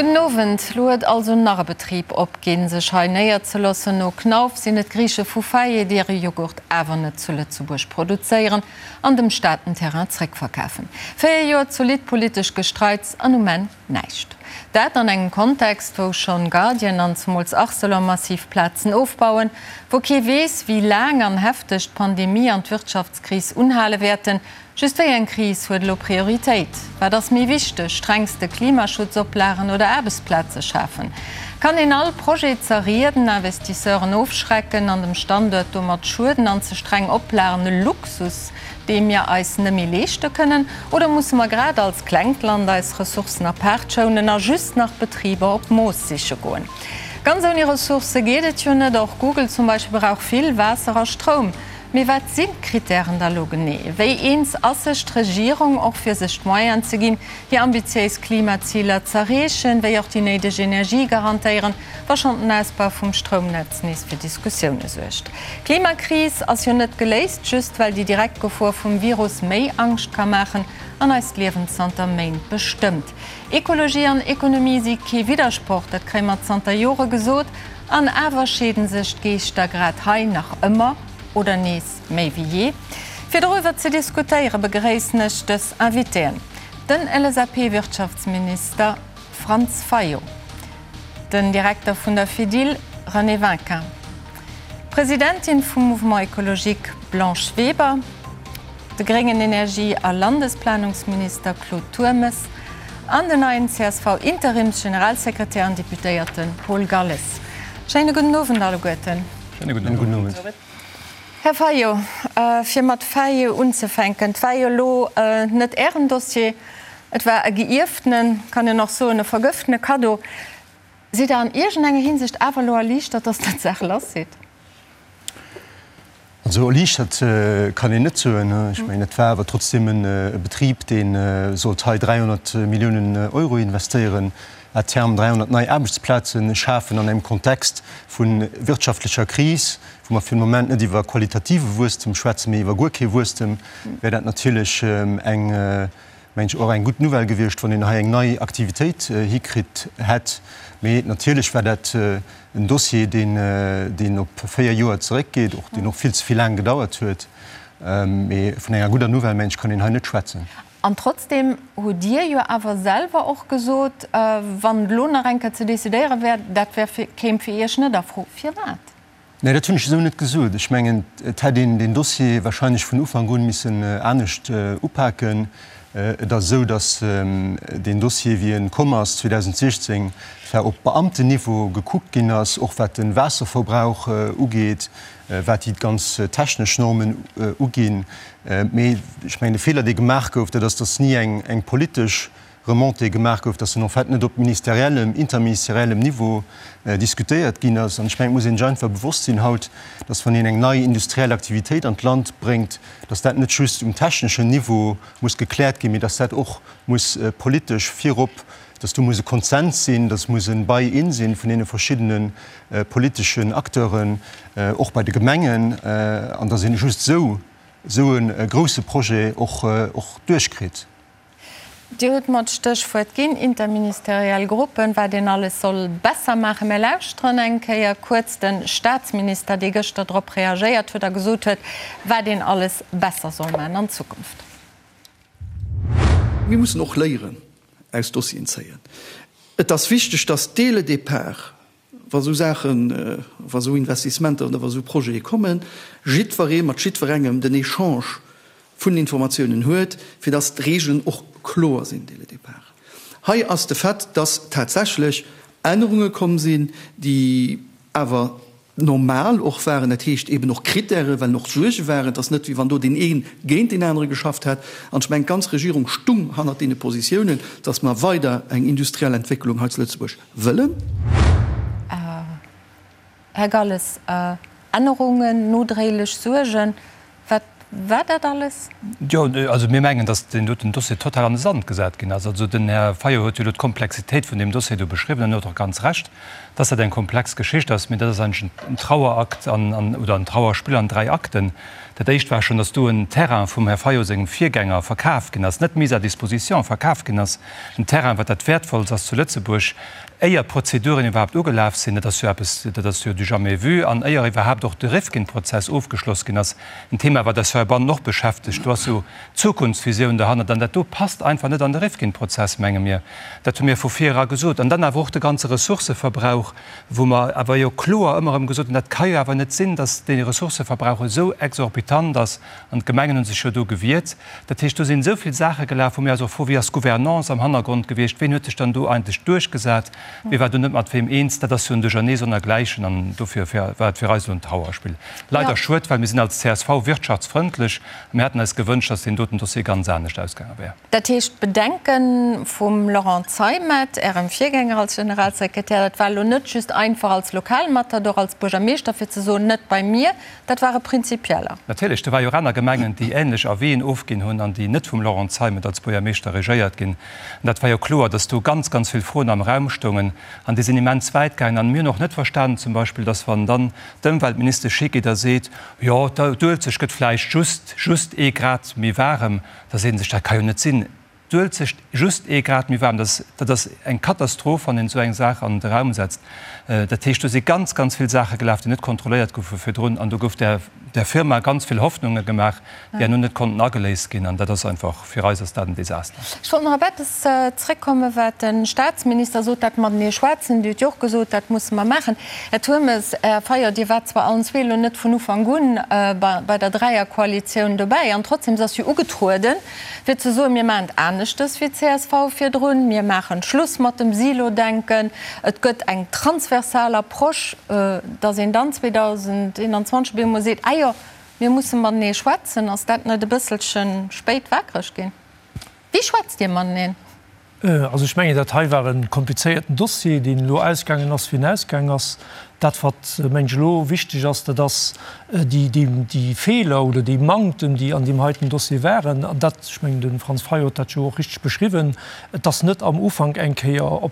Gudden Owend. Lo huet also nach e Betrib opginn, sech hei néierzeloossen. No Knauf sinn et d'Griiche vu Faye, déi hire Joghurt awer net zu Lëtzebuerg produzéieren an dem Staat den Terrain zréckverkafen. 4 Joer zolidd politesch Gestreits an um Enn näischt. Dat an engem Kontext, wou schonn Guardian an zemools Arcelor massiv Plazen ofbauen, wou kee weess, wéi laang an hefteg d'Pandemie an d'Wirtschaftskris unhale wäerten, Just wéi eng Kris huet elo Prioritéit? Wat ass méi wichteg, strengste Klimaschutzoplagen oder Aarbechtsplaze schafen? Kann een all Projet zerrieden, Investisseuren ofschrecken an dem Standuert domat schueden an ze streng Oplagen e Luxus, dee mir eis nëmméi leeschte kënnen? Oder musse mer grad als klengt Land eis Ressourcen apaart schounen a just nach Betriber op Mooss siche goen? Ganz ouni Ressourcë geet et jo net. Och Google zum Beispill brauch vill Waasser a Stroum. Mee wat sinn d'Krittären da lo genee? Wéi eens ass sech d'Regierung och fir sech d'Moyenen ze ginn, hir ambitiéis Klimaziler z'erreechen, wéi och déi néideg Energie garantéieren, wa schonn den Ausbau vum Stroumnetz nees fir Diskussioune suergt? D'Klimakris ass jo net geléist, just well déi direkt Gefor vum Virus méi Angscht ka maachen an eist Liewen zanter Méint bestëmmt. Ekologie an Ekonomie si kee Widdersproch, dat kréie mer zanter Jore gesot. An awer scheeden sech d'Geeschter grad hei nach ëmmer, oder nees méi wéi jee. Fir doriwwer ze diskutéiere begréissen ech dës Invitéen, den LSAP-Wirtschaftsminister Franz Fayot, den Direkter vun der Fedil René Winkin, d'Presidentin vum Mouvement Ecologique Blanche Weber, de gréngen Energie a Landesplanungsminister Claude Turmes an den neien CSV-Interimsgeneralsekretär an Deputéierte Paul Galles. Schéine gudden Owend alleguerten. Schéine gudden Owend. Här Fayot, fir mat Fayot unzefänken, Et war jo elo net Ären Dossier, et war e geierftenen, kann een och soen, e vergëftene Kaddo. Sidd Der an iergendenger Hinsicht awer elo erliichtert, datt Der d'Saach lass sidd? Also erliichtert kann een net soen. Ech mengen, et war awer trotzdem e Betrib, dee sollt hei 300 Milliounen Euro investéieren, à terme 300 nei Aarbechtsplaze schafen an engem Kontext vu wirtschaftlecher Kris, wou mer fir de Moment net iwwer qualitative Wuesstem schwätzen, mee iwwer guer kee Wuesstem, wär dat natierlech eng, mengen ech, och eng gutt Nouvelle gewiescht, wann een hei eng nei Aktivitéit hikritt hätt. Mee natierlech war dat en Dossier, deen, deen op 4 Joer zeréckgeet, och deen och vill ze vill laang gedauert huet. Mee vun enger gudder Nouvelle, mengen ech, kann een hei net schwätzen. An trotzdem hutt Dir jo awer selwer och gesot, wann et elo nach eng Kéier ze decidéiere wär, dat wär fir, kéim fir Iech net a Fro. Firwat? Nee, dat hunn ech esou net gesot. Ech mengen, et hätt een deen Dossier wahrscheinlech vun Ufank un missen anescht upaken. Et ass esou, datt deen Dossier, wéi e komm ass 2016, zwar op Beamtenniveau gekuckt ginn ass, och wat de Waasserverbrauch ugeet, wat déi ganz technesch Normen uginn. Mee ech mengen, de Feeler, dee gemaach gouf, dat ass, datt ni eng politesch Remontée gemaach gouf, dass en en fait net op ministeriellem, interministeriellem Niveau diskutéiert ginn ass. An ech mengen, et muss een sech einfach bewosst sinn haut, dass wann een eng nei industriell Aktivitéit an d'Land bréngt, dass dat net just um techneschen Niveau muss gekläert ginn, mee dass dat och muss politesch virop, dass do muss e Konsens sinn, dass muss e Buy-in sinn vun deene verschiddene politeschen Acteuren, och bei de Gemengen, an dass een just esou esou e grouse Projet och duerchkritt. Dir hutt mer d'Stéchwuert ginn, interministeriell Gruppen, wat een alles soll besser maachen. Mir lauschteren eng Kéier kuerz de Statsminister, dee gëschter drop reagéiert huet a gesot huet, wat een alles besser soll maachen an Zukunft. Mir mussen och Léieren aus Dossieren zéien. Et ass wichteg, dass dès le départ, wa sou Saachen, wa sou Investissementer oder wa sou Projete kommen, jiddweree mat jiddwerengem den Echange vun Informatiounen huet, fir dass d'Regeln och kloer sinn dès le départ. Hei ass de Fait, dass tatsächlech Ännerunge komm sinn, déi awer normal och waren, dat heescht eben och Kritäre, well och Suerge waren. Et ass net, wéi wann do deen ee géint deen anere geschafft hätt. An ech mengen, d'ganz Regierung stung hannert deene Positiounen, dass mer weider eng industriell Entwécklung hei zu Lëtzebuerg wëllen. Här Galles, Ännerungen, nodréilech Suergen, wat. War dat alles? Jo, also mir mengen, datt deen doten Dossier total an de Sand gesat ginn ass. Also den Här Fayot huet jo elo d'Komplexitéit vun deem Dossier do beschriwwen an huet och ganz Recht, datt dat eng komplex Geschicht ass. Mee dat ass eigentlech en Trauerakt an, oder en Trauerspill an dräi Akten. Dat éischt war schonn, datt do en Terrain vum Här Fayot sengem Virgänger verkaf ginn ass, net mise à disposition, verkaf ginn ass, en Terrain, wat dat Wäertvollst ass zu Lëtzebuerg, éier d'Prozeduren iwwerhaapt ugelaf sinn. Dat ass jo eppes, dat ass jo du jamais vu. An éier iwwerhaapt och de Rifkin-Prozess ofgeschloss ginn ass, en Thema, wat eis heibannen och beschäftegt, do ass jo d'Zukunftsvisioun derhannert. An dat do passt einfach net an de Rifkin-Prozess, menge mir. Dat hu mir vu vir era gesot. An dann awer och de ganze Ressourcëverbrauch, wou mer awer jo kloer ëmmer erëm gesot hunn, dat ka jo awer net sinn, datt dee Ressourcëverbrauch esou exorbitant ass. An d'Gemengen hu sech jo do gewiert. Dat heescht, do sinn esou vill Saache gelaf, wou mir eis och froen, Wéi ass d'Gouvernance am Hannergrond gewiescht? Ween huet sech dann do eigentlech duerchgesat? Wie war do net mat weem eens? Dat ass jo en Duerchernee sonnergläichen an dofir war et fir eis elo en Trauerspill. Leider schued, well mir sinn als csv wirtschaftsfrëndlech a mir hätten eis gewënscht, datt deen doten Dossier ganz anescht ausgaange wär. Dat heescht, d'Bedenke vum Laurent Zeimet, Ärem Virgänger als Generalsekretär, dat war elo net just einfach als Lokalmatador, als Buergermeeschter, fir ze soen, net bei mir, dat ware prinzipieller. Natierlech, do ware jo och aner Gemengen, déi änlech Avisen ofginn hunn an déi net vum Laurent Zeimet als Buergermeeschter regéiert ginn. An dat war jo kloer, datt do ganz, ganz vill Froen am Raum stoungen an déi sinn immens wäit gaangen. An mir hunn och net verstanen zum Beispill, datt wann dann d'Ëmweltministesch higeet a seet, jo d'Uelzecht gëtt vläicht just, just ee Grad méi waarem, da seet ee sech, dat ka jo net sinn, d'Uelzecht just ee Grad méi waarm, dat dat ass eng Katastroph, wann een esou eng Saach an de Raum setzt. Dat heescht, do si ganz, ganz vill Saache gelaf, déi net kontrolléiert goufe virdrun an do gouf där der Firma ganz vill Hoffnunge gemaach, déi herno net konnten ageléist ginn an dat ass einfach, fir eis ass dat en Desaster. Ech wollt nach op eppes zréckkommen, wat de Statsminister sot, dat matenee schwätzen. Dir hutt jo och gesot, dat musse mer maachen. Här Turmes, Här Fayot, Dir waart zwar allen zwee elo net vun Ufank un bei der Dräierkoalitioun dobäi an trotzdem, se ass jo ugetrueden, fir ze soen, mir maachen et aneschtes wéi csv virdrun, mir maachen Schluss mat dem Silo-Denken, et gëtt eng transversal Approche, dass een dann 2021 op eemol seet, ah jo, mir musse matenee schwätzen, ass dat net e bësselche spéit wakereg ginn? Wéi schwätzt Dir mateneen? Also ech mengen, dat hei war e komplizéierten Dossier, deen elo ausgaangen ass, wéi en ausgaangen ass. Dat, wat, mengen ech, elo wichteg ass, dat ass déi Feeler oder déi Manktem, déi an deem heiten Dossier waren, an dat, ech mengen, de Franz Fayot huet dat jo och richteg beschriwwen, et ass net am Ufank eng Kéier op,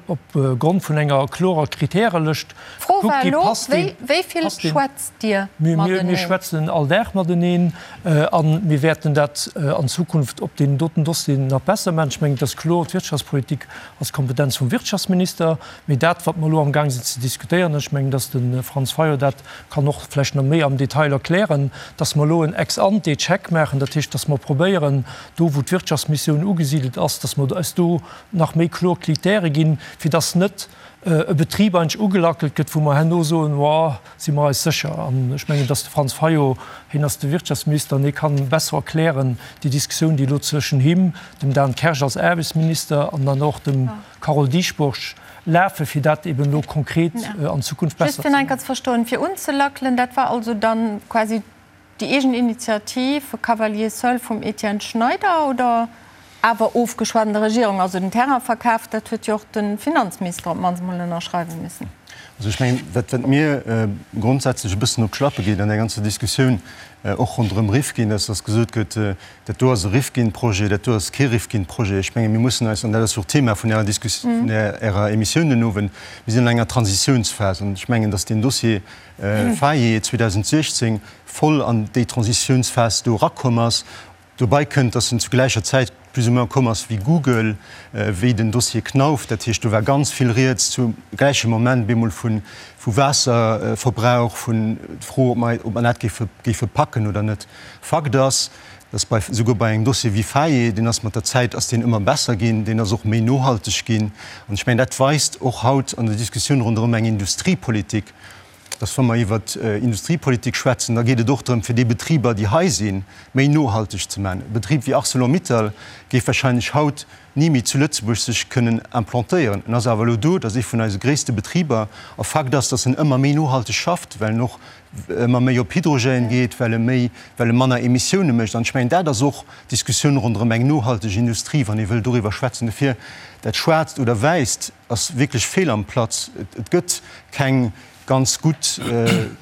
op Grond vun enger klorer Kritärelëscht D'Fro war elo, wéi vill schwätzt Dir mateneen? Mir schwätzen all Dag mateneen a mir wäerten dat an Zukunft op deenen doten Dossieren nach besser maachen. Ech mengen, et ass kloer, d'Wirtschaftspolitik ass d'Kompetenz vum Wirtschaftsminister. Mee dat, wat mer elo amgaang sinn ze diskutéieren, ech mengen, datt de Franz Fayot dat kann och vläicht nach méi am Detail erklären, datt mer elo en Ex-ante-Check maachen, dat heescht, datt mer probéieren, do wou d'Wirtschaftsmissioun ugesidelt ass, datt mer eis do nach méi kloer Kritäre ginn, fir dass net e Betrib eigentlech ugelackelt gëtt, wou mer herno soen, Woah, si mer eis sécher? An ech mengen, dass de Franz Fayot, hien ass de Wirtschaftsminister an hie kann besser erklären déi Diskussioun, déi elo zwëschen him, dem Dan Kersch als Aarbechtsminister an dann och dem Carole Dieschbourg lafen, fir dat eben elo konkret an Zukunft besser ze maachen. Just fir nach eng Kéier ze verstoen, fir unzelackelen, dat war also dann quasi Déi eegen Initiativ Cavalier seul vum Etienne Schneider oder awer ofgeschwat an der Regierung? Also den Terrain verkaf, dat huet jo och de Finanzminister op d'mannst emol ënnerschreiwe missen. Also ech mengen, wat wat mir grondsätzlech e bëssen op d'Schlappe geet an där ganzer Diskussioun, och ronderëm Rifkin, ass, datt gesot gëtt, dat do ass e Rifkin-Projet, dat do ass kee Rifkin-Projet. Ech menge mir mussen eis, an dat ass jo och d'Thema vun Ärer Diskus, vun Ärer Emissioun den Owend, mir sinn an enger Transitiounsphas an ech mengen, datt deen Dossier, Faye 2016 voll an déi Transitiounsphas do erakomm ass. Dobei kënnt, dass en zu gläicher Zäit plus ou moins komm ass wéi Google, wéi den Dossier Knauf. Dat heescht, do war ganz vill rieds zum gläiche Moment bemol vu Waasserverbrauch, vun d'Fro, ob mer, ob mer dat géife, géife packen oder net. Fakt ass, dass bei, souguer bei engem Dossier wéi Faye, deen ass mat der Zäit ass deen ëmmer besser ginn, deen ass och méi nohalteg ginn. An ech mengen, dat weist och haut an der Diskussioun ronderëm eng Industriepolitik, dass wa mer iwwer Industriepolitik schwätzen, da geet et och drëm, fir déi Betriber, déi hei sinn, méi nohalteg ze maachen. E Betrib wéi Arcelor-Mittal géif wahrscheinlech haut ni méi zu Lëtzebuerg sech kënnen implantéieren. En ass awer elo do, dat ass ee vun eise gréisste Betriber. A Fakt ass, dass en ëmmer méi nohalteg schafft, well en och ëmmer méi op Hydrogène geet, well e méi, well e manner Emissioune mécht. An ech mengen, dat ass och d'Diskussioun ronderëm eng nohalteg Industrie, wann ee wëll doriwwer schwätzen. Dofir, dat Schwaarzt oder Wäisst ass wierklech fehl am Platz. Et gëtt keng ganz gutt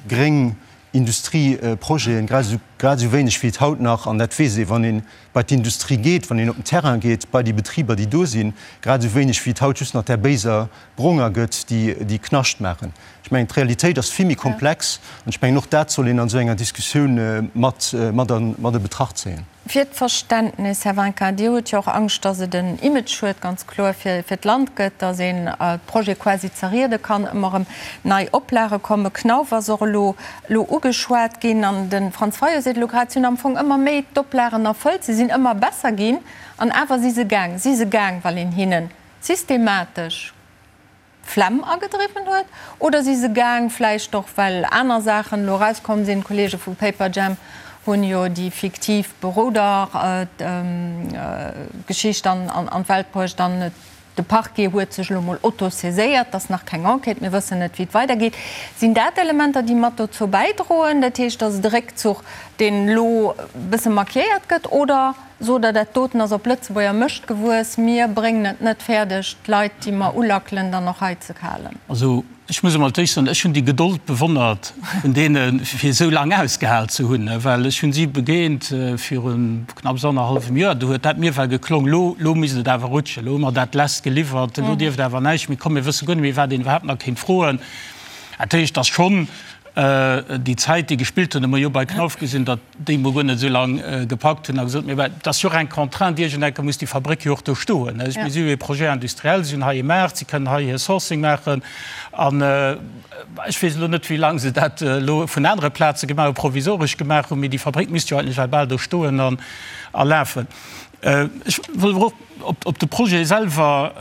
gréng. Industrieprojeten, grad esou, grad esou wéineg wéi et haut nach, an dat weess ee wann ee bei d'Industrie geet, wann een op den Terrain geet, bei déi Betriber déi do sinn, grad esou wéineg wéi et haut just nach där béiser Bronger gëtt, déi, déi Knascht maachen. Ech mengen, d'Realitéit ass vill méi komplex an ech mengen, och dat soll een an esou enger Diskussioun mat, mat an, mat a Betracht zéien. Fir d'Verständnis, Här Winkin, Dir hutt jo och Angscht, datt et en Imageschued ganz kloer fir d'Land gëtt, datt een d'Projete quasi zerriede kann, ëmmer erëm nei Oplage kommen. Knauf ass och elo elo ugeschwat ginn an de Franz Fayot seet elo grad, si hunn am Fong ëmmer méi d'Oplagen erfëllt, se sinn ëmmer besser ginn an awer si se gaang. Si se gaang, well een hinne systematesch Flemm agedriwwen huet? Oder si se gaang, vläicht och well aner Saachen elo erauskomm sinn, d'Kollege vu Paperjam hunn jo déi fiktiv Beroder-Geschicht an d'Welt bruecht an de Parquet huet sech elo mol autosaiséiert, et ass nach keng Enquête, mir wëssen net wéi et weidergeet. Sinn dat Elementer, déi mat dozou bäidroen, dat heescht, datt et e Réckzuch, deen elo e bësse markiéiert gëtt, oder? Sot Der, dat doten ass op Lëtzebuerger Mëscht gewuess, mir bréngen et net fäerdeg, d'Leit, déi mer ulackelen, dann och hei ze halen? Also, ech muss emol d'éischt soen, ech hunn déi Gedold bewonnert vun deene fir esou laang ausgehal ze hunn, well ech hunn si begéint viru knapps annerhallwem Joer, do huet dat mir well geklong, elo, elo misst et awer rutschen, elo hu mer dat lest geliwwert, elo dierft awer näischt méi kommen, mir wësse guer net méi, wat een iwwerhaapt nach kéint froen. Dat heescht, et ass schonn déi Zäit, déi gespillt hunn, hu mer jo bei Knauf gesinn, datt déi mol guer net esou laang gepackt hunn a gesot, mee et ass jo och eng Contrainte, iergendenke muss déi Fabréck jo och do stoen. Mir si jo ee Projet industriel, si hunn hei ee Maart, si kënnen hei hir Sourcing maachen. An ech weess elo net, wéi laang se dat elo vun anere Plaze gemaach hu, provisoresch gemaach hunn, mee déi Fabréck misst jo eigentlech well bal do stoen a lafen. Ech wëll awer och op de Projet selwer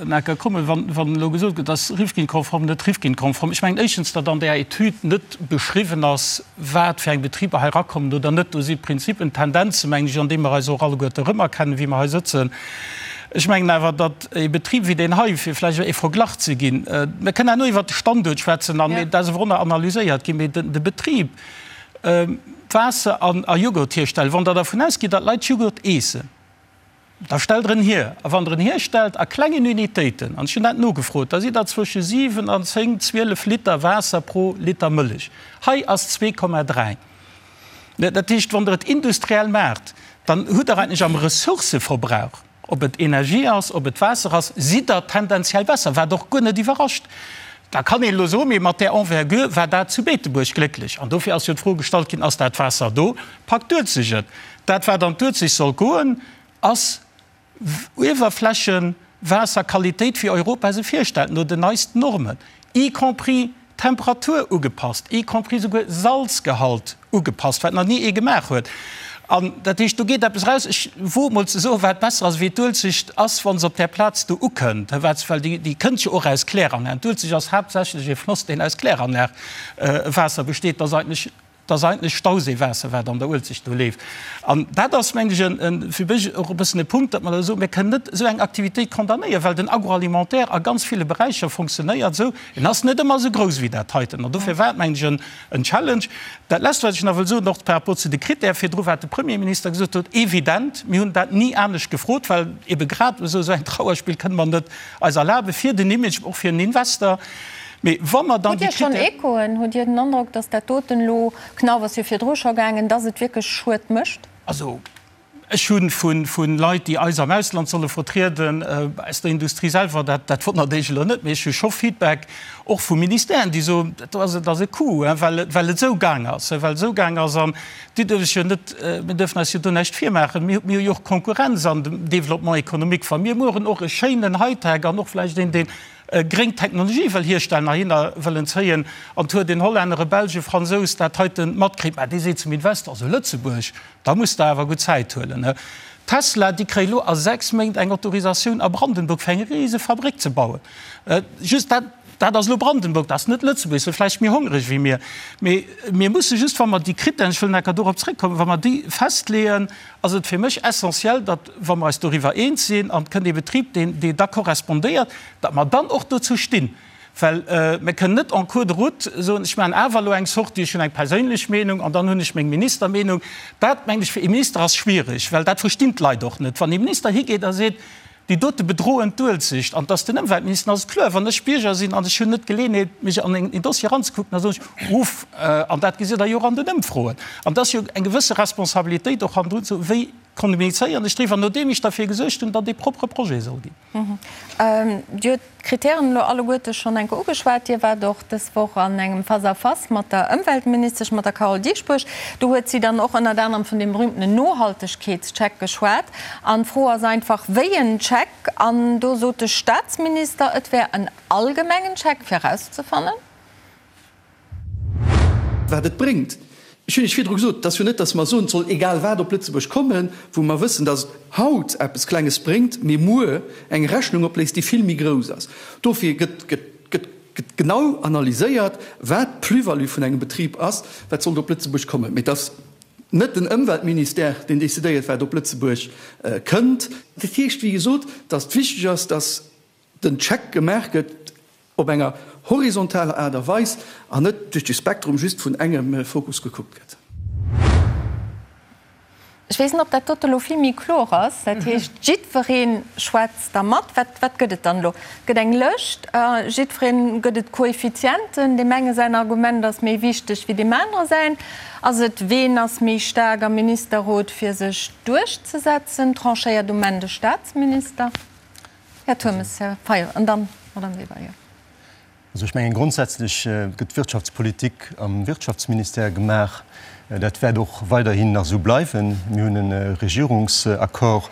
nach eng Kéier kommen, wann elo gesot gëtt, ass Rifkin-konform, net Rifkin-konform. Ech mengen éischtens, datt an där Etüd net beschriwwen ass, wat fir eng Betriber hei erakommen oder net. Do si Prinzipen, Tendenzen, mengen ech, an deene mer eis och alleguerte erëmerkennen, wéi mer hei sëtzen. Ech mengen awer, datt e Betrib wéi deen hei, fir vläicht e Verglach ze ginn, mir kënnen herno iwwert de Standuert schwätzen an dat ass awer och nach analyséiert ginn, mee de Betrib, Waasser a Jughurt hierstellen, wann Der dervun ausgitt, datt d'Leit Jughurt eessen, da stellt Der en hier. A wann Der en hierstellt a klengen Unitéiten, an ech hunn dat nogefrot, da sidd Der zwësche 7 an 10, 12 Liter Waasser pro Liter Mëllech. Hei ass 2,3. Dat heescht, wann Der et industriell maacht, dann hutt Der eigentlech am Ressourcëverbrauch, Ob et Energie ass, ob et Waasser ass, sidd Der tendenziell besser, wat och guer net iwwerrascht. Da kann een elo soen, mee mat där Envergure war dat zu Beetebuerg glécklech. An dofir ass jo d'Fro gestallt ginn, Ass dat Waasser do? Packt d'Uelzecht et? Dat, wat an d'Uelzecht soll goen, ass Uewerflächewaasserqualitéit, wéi Europa se virstellt, no den neisten Normen, y compris Temperatur ugepasst, y compris souguer Salzgehalt ugepasst, wat nach ni ee gemaach huet. An dat heescht, do geet eppes eraus. Ech woe mol ze soen, wat besser ass wéi d'Uelzecht ass, wa se op där Plaz do ukënnt, wat, well déi, déi kënnt jo och aus Kläranlagen. D'Uelzecht ass haaptsächlech e Floss, deen aus Kläranlagewaasser besteet. Dat ass eigentlech Dat ass eigentlech Stauséiwaasser, wat an der Uelzecht do leeft. An dat ass, mengen ech, en, fir mech och e bëssen e Punkt, datt mer da soen, mir kënnen net esou eng Aktivitéit condamnéieren, well den Agroalimentaire a ganz ville Beräicher fonctionnéiert esou. En ass net ëmmer esou grouss wéi dat heiten. An dofir war et, mengen ech, en, en Challenge. Dat Lescht, wat ech nach wëll soen, och par rapport zu de Critèrë virdru, wat de Premierminister gesot huet, Evident, mir hunn dat ni anescht gefrot, well ebe grad esou esou eng Trauerspill kënne mer net eis erlaben, fir den Image, och fir en Investor. Mee wa mer dann Hutt déi Dir schonn Critère. Echoen? Hutt Dir den Androck, datt dat doten elo, Knauf ass jo virdru scho gaangen, datt et wierklech Schued mécht? Also ech hu vu Leit, déi eis am Ausland solle vertrieden, aus der Industrie selwer, dat dat wonnert Iech elo net, mee ech hu scho Feedback och vu Ministèren, déi soen, dat do ass, et ass e Coup, well et well et esou gaang ass, well et esou gaang ass. An Dir duerft lech jo net, mir dürfen eis jo do näischt virmaachen, mir hu jo och Konkurrenz an dem Développement économique. Wa mir mueren och e schéinen Hightech an och vläicht een, deen gréng Technologie wëll hierstellen, heihinner wëllen zéien, an 't huet een Hollänner, e Belsch, e Fransous dat heite matkritt, mä dee seet zum Investor, also Lëtzebuerg, da muss Der awer gutt Zäit huelen. Tesla, déi kréie lo a 6 Méint eng Autorisatioun a Brandenburg, fir eng rise Fabréck ze bauen. Just dat, dat ass elo Brandenburg, dat ass net Lëtzebuerg, se vläicht méi hongreg wéi mir. Mee mir musse just, wa mer déi Krittären, ech wëll nach enker dorop zréckkommen, wa mer déi festleeën, ass et fir mech essentiell, datt, wa mer eis doriwwer eens sinn an et kënnt ee Betrib, deen, dee da korrespondéiert, datt mer dann och dozou stinn. Well mir kënnen net en cours de route soen, ech maachen awer elo eng Sortie, ech hunn eng perséinlech Meenung an dann hunn ech meng Ministermeenung. Dat, mengen ech, fir ee Minister ass schwierig, well dat verstinn d'Leit och net. Wann ee Minister higeet a seet,. Déi dote bedroen d'Uelzecht. An dass den Ëmweltminister, ass et kloer, wann ech Bierger sinn an ech hunn net d'Geleeënheet, mech an en Dossier eranzekucken, da soen ech, Uff. An dat gesitt Der jo och an den Ëmfroen. An et ass jo eng gewësse Responsabilitéit och hannendrun, ze soen, wéi kommunizéieren ech driwwer, nodeem ech derfir gesuergt hunn, datt ee propre Projet soll ginn. Dir hutt d'Kritären elo alleguerte schonn eng Kéier ugeschwat. Dir waart och dës Woch an engem Face-à-face mat der Ëmweltministesch, mat der Carole Dieschbourg. Do huet si dann och ënnert anerem vun deem berühmtenen Nohaltegkeetscheck geschwat. An d'Fro ass einfach, wéi en Check? An do sot de Staatsminister, et wär en allgemengen Check, fir erauszefannen, Wat et bréngt. Ech hunn Iech virdru gesot, et ass jo net, datt mer soen, et soll egal wat op Lëtzebuerg kommen, wou mer wëssen, datt et haut eppes Klenges bréngt, mee muer eng Rechnung opléist, déi vill méi grouss ass. Dofir gëtt, gëtt, gëtt, gëtt genau analyséiert, wat d'Plus-value vun engem Betrib ass, wat sollt op Lëtzebuerg kommen. Mee et ass net den Ëmweltministère, deen decidéiert, wat op Lëtzebuerg kënnt. Dat heescht, wéi gesot, datt wichteg ass, datt den Check gemaach gëtt op enger horizontaler Aart a Weis an net duerch de Spektrum just vun engem Fokus gekuckt gëtt. Ech weess net, ob dat dote elo vill méi kloer ass. Dat heescht, jiddweree schwätzt da mat. Wat, wat gëtt et dann elo? Et gëtt eng Lëscht, jiddweree gëtt et Koeffizienten. Deem enge säin Argument ass méi wichteg wéi deem anere säin. Ass et, ween ass méi staark am Ministerrot, fir sech duerchzesetzen? Tranchéiert um Enn de Staatsminister? Här Turmes, Här Fayot an dann d'Madame Weber, jo. Also ech mengen, grondsätzlech gëtt d'Wirtschaftspolitik am Wirtschaftsministère gemaach. Dat wäert och weiderhin nach esou bleiwen. Mir hunn e Regierungsaccord,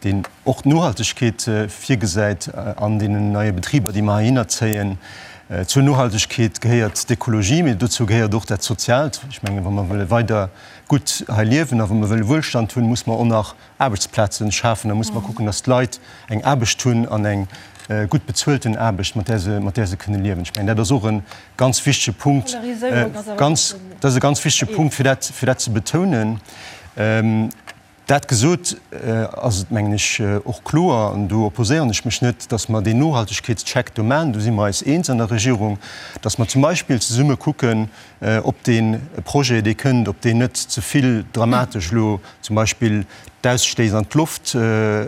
deen och d'Nohaltegkeet virgesäit an deenen neie Betriber, déi mer heihinner zéien. Zur Nohaltegkeet gehéiert d'Ekologie, mee dozou gehéiert och dat Soziaalt. Ech mengen, wa mer wëlle weider gutt hei liewen a wa mer wëlle Wuelstand hunn, muss mer och nach Aarbechtsplazen schafen, da muss mer kucken, dass d'Leit eng Aarbecht hunn an eng gutt bezuelten Aarbecht, mat där se, mat där se kënne liewen. Ech mengen, dat ass och e ganz wichtege Punkt, ganz, dat ass e ganz wichtege Punkt, fir dat, fir dat ze betounen. Dat gesot, ass et, mengen ech, och kloer, an do opposéieren ech mech net, dass mer deen Nohaltegkeetscheck do maachen, do si mer eis eens an der Regierung, dass mer zum Beispill zesumme kucken, ob dee Projet, dee kënnt, ob deen net ze vill dramatesch elo zum Beispill d'Ausstéiss an d'Loft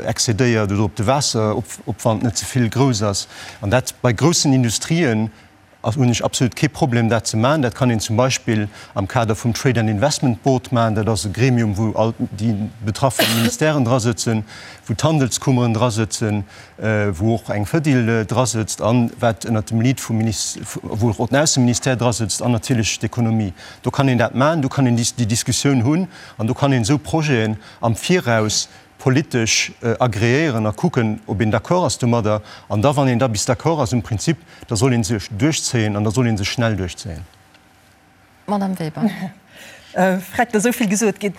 excédéiert oder ob de Waasseropwand net ze vill grouss ass. An dat bei groussen Industrien hunn ech absolut kee Problem, dat ze maachen. Dat kann een zum Beispill am Kader vum Trade and Investment Board maachen. Dat ass e Gremium, wou all déi betraffe Ministèren drasëtzen, wou d'Handelskummeren drasëtzen, wou och eng Fedil drasëtzt an wat ënnert dem Lead vum Minis-, wou och den Ausseministère drasëtzt an natierlech d'Ekonomie. Do kann een dat maachen, do kann een déi Diskussioun hunn an do kann een esou Projeten am Viraus politesch agreéieren a kucken, ob een d'accord ass domadder. An da, wann een da bis d'accord ass um Prinzip, da soll ee sech duerchzéien an da soll ee sech schnell duerchzéien. Madame Weber. Freck, et ass esou vill gesot ginn.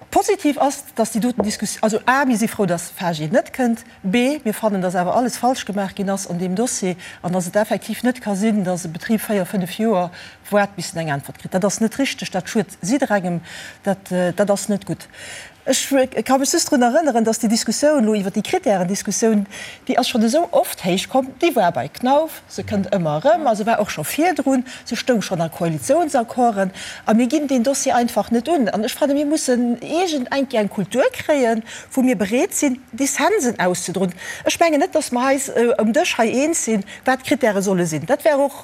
Positiv ass, dass déi doten Diskussioun, also a, mir si frou, dass FAGE net kënnt, b, mir fannen, dass awer alles falsch gemaach ginn ass an deem Dossier an dass et effektiv net ka sinn, dass e Betrib véier, fënnef Joer waart, bis en eng Äntwert kritt. Dat ass net richteg, dat schued jidderengem, dat, dat ass net gutt. Ech ka mech just drun erënneren, dass déi Diskussioun elo iwwert déi Kritären-Diskussioun, déi ass schonn esou oft héich komm, déi war bei Knauf, Se kënnt ëmmer erëm a se war och scho virdrun, se stoung schonn a Koalitiounsaccorden a mir ginn deen Dossier einfach net un. An ech fannen, mir mussen iergend eng Kéier eng Kultur kréien, wou mir bereet sinn, Dissensen auszedroen. Ech mengen net, dass mer eis um Dësch hei eens sinn, wat d'Krittäre solle sinn. Dat wär och,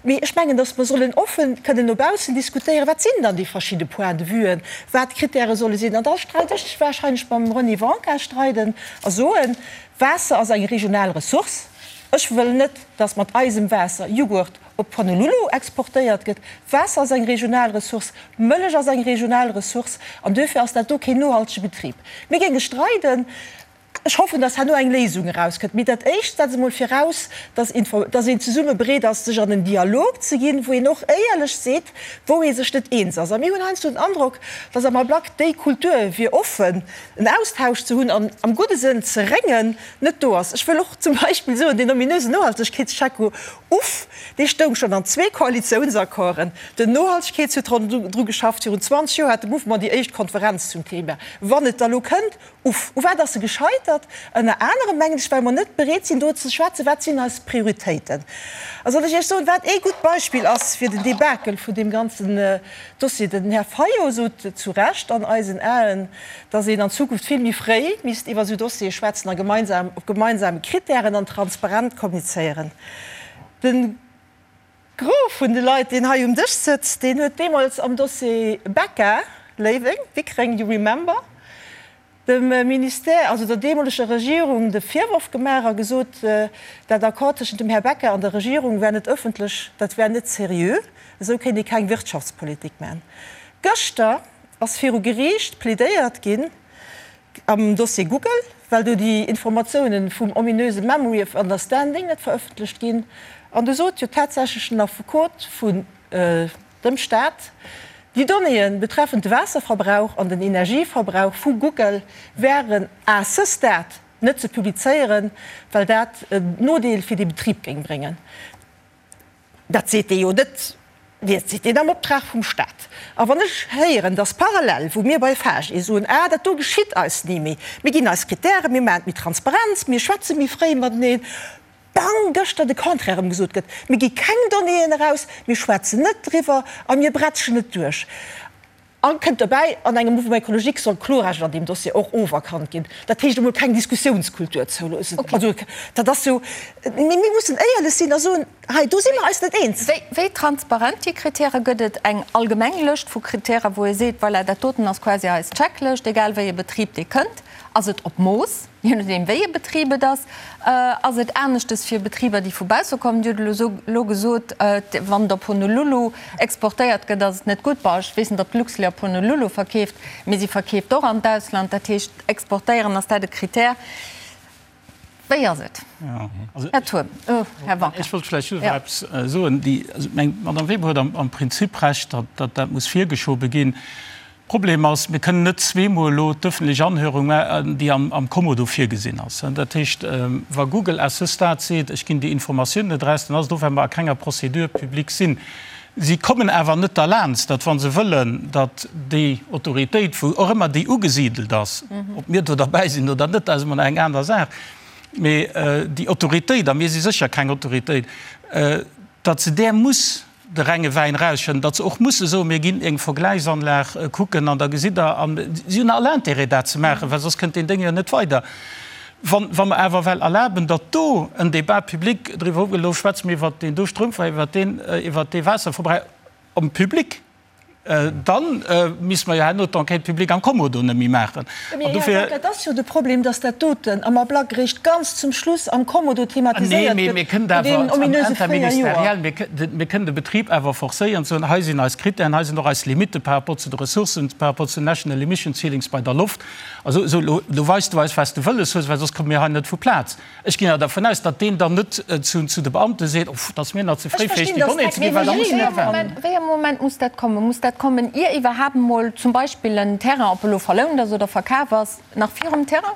mee ech mengen, dass mer sollen offen kënnen no baussen diskutéieren, wat sinn dann déi verschidde Point-de-vuen, wat d'Krittäre solle sinn. An da streit ech wahrscheinlech mam René Wanka streiden a soen, Waasser ass eng regional Ressource. Ech wëll net, dass mat eisem Waasser Jughurt op Honolulu exportéiert gëtt. Waasser ass eng regional Ressource, Mëllech ass eng regional Ressource an duerfir ass dat do keen nohaltege Betrib. Mir géinge streiden. Ech hoffen, dass herno eng Léisung erauskënnt. Mee dat Éischt setzt emol viraus, dass dass een zesumme bereet ass, sech an en Dialog ze ginn, wou een och éierlech seet, wou ee sech net eens ass. A mir hunn heiansdo den Androck, dass am Ablack déi Kultur, fir offen en Austausch ze hunn an am gudde Sënn ze réngen, net do ass. Ech wëll och zum Beispill soen, deen ominösen Nohaltegkeetscheck, uff, dee stoung schonn an zwee Koalitiounsaccorden. Den Nohaltegkeets huet dru geschafft. Virun 20 Joer hat de Mouvement déi éischt Konferenz zum Thema. Wann et da lo kënnt, uff, u wat ass e gescheitert? gescheitert, ënner anerem, mengen ech, well mer net bereet sinn, do ze schwätzen, wat sinn eis Prioritéiten. A soll ech Iech soen, wat ee gutt Beispill ass fir den Debakel vun deem ganzen Dossier? Den Här Fayot sot zu Recht an eisen Aen, dass een an Zukunft vill méi fréi misst iwwer esou Dossiere schwätzen a gemeinsam op gemeinsame Kritären an transparent kommunizéieren. De Gros vun de Leit, deen hei um Dësch sëtzt, deen huet deemools am Dossier Becca, Léiweng, Wickreng, you remember, dem Ministère, also der deemoleger Regierung, de Virworf gemaach a gesot, dat Accord tëschent dem Här Becca an der Regierung wär net ëffentlech, dat wär net seriö, esou kéint ee keng Wirtschaftspolitik maachen. Gëschter ass viru Geriicht plädéiert ginn am Dossier Google, well do déi Informatiounen vum ominöse Memory of Understanding net verëffentlecht ginn. An du sot jo tatsächlech den Affekot vun dem Staat, déi Donnéeë betreffend de Waasserverbrauch an den Energieverbrauch vu Google wären à ce stade net ze publizéieren, well dat en Nodeel fir dee Betrib géing bréngen. Dat seet dee jo net, dat seet deen am Optrag vum Staat. A wann ech héieren, dass parallel, wou mir bei FAGE soen, ah dat do geschitt eis ni méi, mir ginn eis Kritären, mir maachen et méi Transparenz, mir schwätze méi fréi mateneen, bang, gëschter de Contraire erëm gesot gëtt, mir gi keng Donnéeën eraus, mir schwätzen net driwwer a mir bretschen et duerch. A kënnt dobäi, an engem Mouvement écologique soll d'Klorecht an deem Dossier och oferkannt ginn. Dat heescht emol keng Diskussiounskultur zouloossen. Also dat ass jo, mee mir mussen éierlech sinn a soen, hei do si mer eis net eens. Wéi transparent déi Kritäre? Gëtt et eng allgemeng Lëscht vu Kritäre, wou ee seet, voilà, dat doten ass quasi eis Checklëscht, egal wéi e Betrib dee kënnt? Ass et op Mooss? Je nodeem wéi e Betrib et ass, ass et aneschtes fir Betriber, déi vu bausse kommen. Dir hutt elo elo gesot, wann et op Honolulu exportéiert gëtt, ass et net gutt. Bon, ech weess net, ob d'Luxlait op Honolulu verkeeft, mee si verkeeft och an d'Ausland. Dat heescht, exportéieren, ass dat e Krittär? Wéi ass et, Här Turm? Här Wanka. Ech wollt vläicht just nach eppes soen. Déi, also ech mengen, d'Madame Weber huet am Prinzip Recht, datt dat muss virgeschobe ginn. Problem ass, mir kënnen net zweemol elo d'ëffentlech Anhörung maachen, déi am Kommodo virgesinn ass. Dat heescht, wa Google à ce stade seet, ech ginn déi Informatioun net eraus, dann ass et och, well mer a kenger Procédure publique sinn. Si kommen awer net derlaanst, datt, wa se wëllen, datt déi Autoritéit, wou och ëmmer déi ugesidelt ass, ob mir do derbäi sinn oder net, dat ass emol nach eng aner Saach, mee déi Autoritéit, a mir si sécher keng Autoritéit, datt se där muss de renge Wäin erausschëdden, datt se och musse soen, mir ginn eng Vergläichsanlag kucken an da gesitt Der, a si hunn all Intérêt dat ze maachen, well soss kënnt deen Déng jo net weider. Wa wa mer awer well erlaben, datt do en Débat public driwwer ofgëtt, elo schwätze mir iwwert deen do Stroumverbrauch, iwwert deen, iwwert dee Waasserverbrauch am Public, Dann misste mer jo herno d'Enquête publique am Kommodo net méi maachen. Mee Här Beck, et ass jo de Problem, dass dat doten am Ablack eréischt ganz zum Schluss am Kommodo thematiséiert gëtt, no deenen ominöse 4 Joer. Mir kënnen de Betrib awer forcéieren ze soen, hei sinn eis Krittären, hei sinn och eis Limitte par rapport zu de Ressourcen, par rapport zu den National Emission Ceilings bei der Loft. Also elo weis du eis, wat s du wëlles hues, well soss komme mir hei net vu Plaz. Ech ginn awer dervun aus, datt deen dann net zu de Beamte seet, Oh, dat ass mir nach ze fréi, fir Iech déi Donnée ze ginn, well da muss en net waarden. Wéi ee Moment muss dat kommen? Muss dat kommen, ier iwwerhaapt emol zum Beispill en Terrain, ob elo verlount ass oder verkaf ass, nach virum Terrain?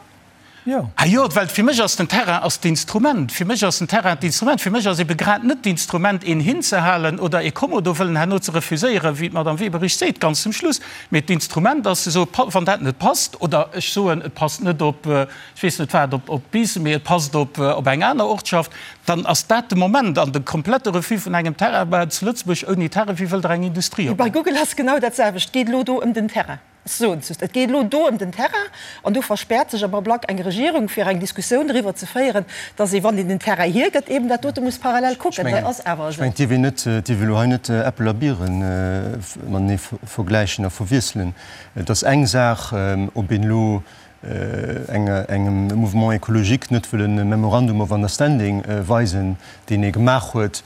Jo. Ah jo, well fir mech ass den Terrain ass d'Instrument. Fir mech ass den Terrain d'Instrument. Fir mech ass ebe grad net d'Instrument, een hinzehalen oder ee Kommodo wëllen herno ze refuséieren, wéi d'Madame Weber richteg seet, ganz zum Schluss. Mee d'Instrument ass ze soen, wann dat net passt, oder ech soen, et passt net op, ech weess net wat, op Biissen, mee et passt op eng aner Ortschaft, dann ass dat de Moment. An de komplette Refus vun engem Terrain, bah, zu Lëtzebuerg ouni Terrain, wéi wëllt Der eng Industrie Bei opbauen? Google ass genau dat selwecht. Et geet elo do ëm den Terrain. Ech soen es just, et geet elo do ëm den Terrain. An do verspäert sech am Ablack eng Regierung, fir eng Diskussioun driwwer ze féieren, dass ee, wann een den Terrain hiergëtt, eeben dat dote muss parallel kucken. Dat ass awer Ech esou. mengen, et dierf een net, et dierf ee elo hei net Äppel a Bieren matenee vergläichen a verwiesselen. Et ass eng Saach, ob een elo engem Mouvement écologique net wëll e Memorandum of Understanding weisen, deen ee gemaach huet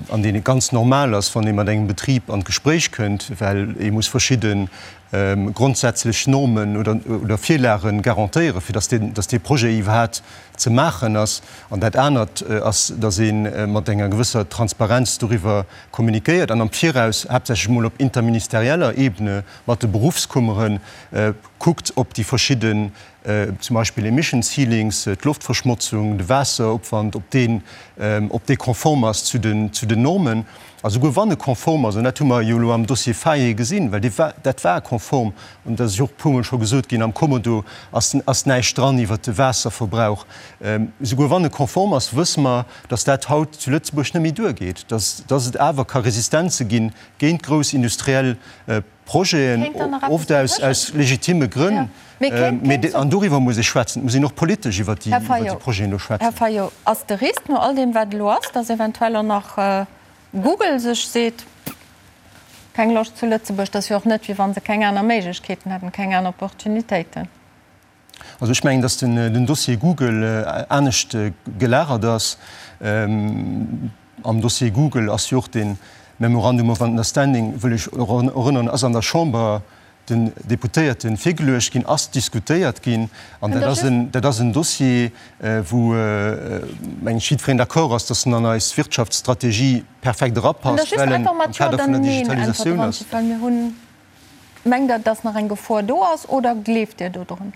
an deen ganz normal ass, wann ee mat engem Betrib an d'Gespréich kënnt, well ee muss verschidde grondsätzlech Normen oder Virlage garantéieren, fir datt dee Projet iwwerhaapt ze maachen ass. An dat anert ass, datt ee mat enger gewësser Transparenz doriwwer kommunikéiert an am Viraus, haaptsächlech emol op interministerieller Ebene mat de Beruffskummeren, kuckt op déi verschidden, zum Beispill Emission Ceilings, d'Loftverschmotzung, de Waasseropwand, ob deen, ob dee konform ass zu den, zu den Normen. A souguer wann e konform ass, an dat hu mer jo elo am Dossier Faye gesinn, well dee war, dat war konform. konform. An dat ass jo och e puermol scho gesot ginn, am Kommodo ass, ass näischt dran iwwert de Waasserverbrauch. Souguer wann e konform ass, wësse mer, dass dat haut zu Lëtzebuerg net méi duergeet, dass, dass et awer ka Resistenze ginn géint grouss industriell Projeten, oft aus, aus legitime Grënn. Mee, an doriwwer muss ee schwätzen, et muss een och politesch iwwert déi, iwwert déi Projeten do schwätzen. Här Fayot, ass de Risk no all deem, wat elo ass, dass eventuell och nach Google sech seet, Keng Loscht zu Lëtzebuerg, dat ass jo och net, wéi wa se keng aner Méiglechkeeten hätten, keng aner Opportunitéiten. Also ech mengen, datt den Dossier Google anescht gelagert ass. Am Dossier Google ass jo och dee Memorandum of Understanding, wëll ech erënneren, ass an der Chamber den Deputéierte virgeluecht ginn, ass diskutéiert ginn. An dat ass en, dat ass en Dossier, wou, mengen ech, jiddwereen d'accord ass, datt en an eis Wirtschaftsstrategie perfekt erapasst, well en am Kader vun der Digitalisatioun ass. Mengt Der, dass nach eng Gefor do ass oder gleeft Dir do drun?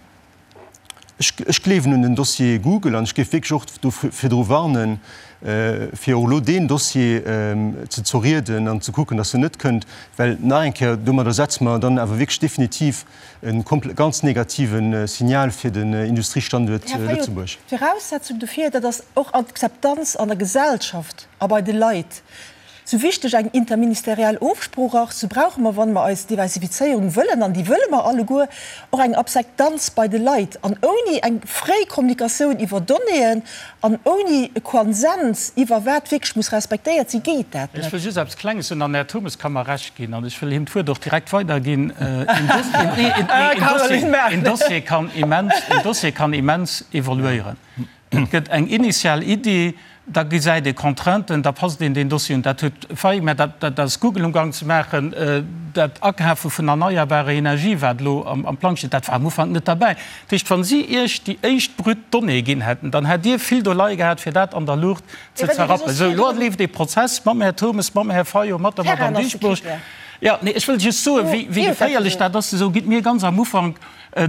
Ech gleewen un den Dossier Google an ech géif wierklech och do virdru warnen, fir och elo deen Dossier ze zerrieden an ze kucken, dass en net kënnt, well nach eng Kéier, domadder setze mer dann awer wierklech definitiv e ganz negative Signal fir den Industriestanduert Lëtzebuerg. Här Fayot, d'Viraussetzung dofir, dat ass och Akzeptanz an der Gesellschaft a bei de Leit. Sou wichteg eng interministeriell Ofsprooch ass, sou brauche mer, wa mer eis Diversifizéierung wëllen, an déi wëlle mer alleguer, och eng Akzeptanz bei de Leit. An ouni eng fréi Kommunikatioun iwwer Donnéeën an ouni e Konsens iwwer wat wierklech muss respektéiert sinn, geet dat Ech net. wëll just eppes Klenges soen, an den Här Turmes ka mer Recht ginn, an ech wëll him d'Wuert och direkt weiderginn, Een Dossier kann immens, een Dossier kann immens evoluéieren. Et gëtt eng initial Iddi, da gesäit ee Contrainten, da passt een deen Dossier un. Dat huet failli, mä dat, dat ass Google umgang ze maachen. Dat Akafe vun erneierbarer Energie, wat elo am Plang steet, dat war am Ufank net derbäi. Dat heescht, wa si Iech déi éischt brut Donnée ginn hätten, dann hätt Dir vill Doleie gehat, fir dat an der Luucht ze zerrappen. Sou, elo leeft ee Prozess mam Här Turmes, mam Här Fayot, mat der Madame Dieschbourg. Jo, nee, ech wëll just soen, wéi geféierlech dat ass. Esou gitt mir ganz am Ufank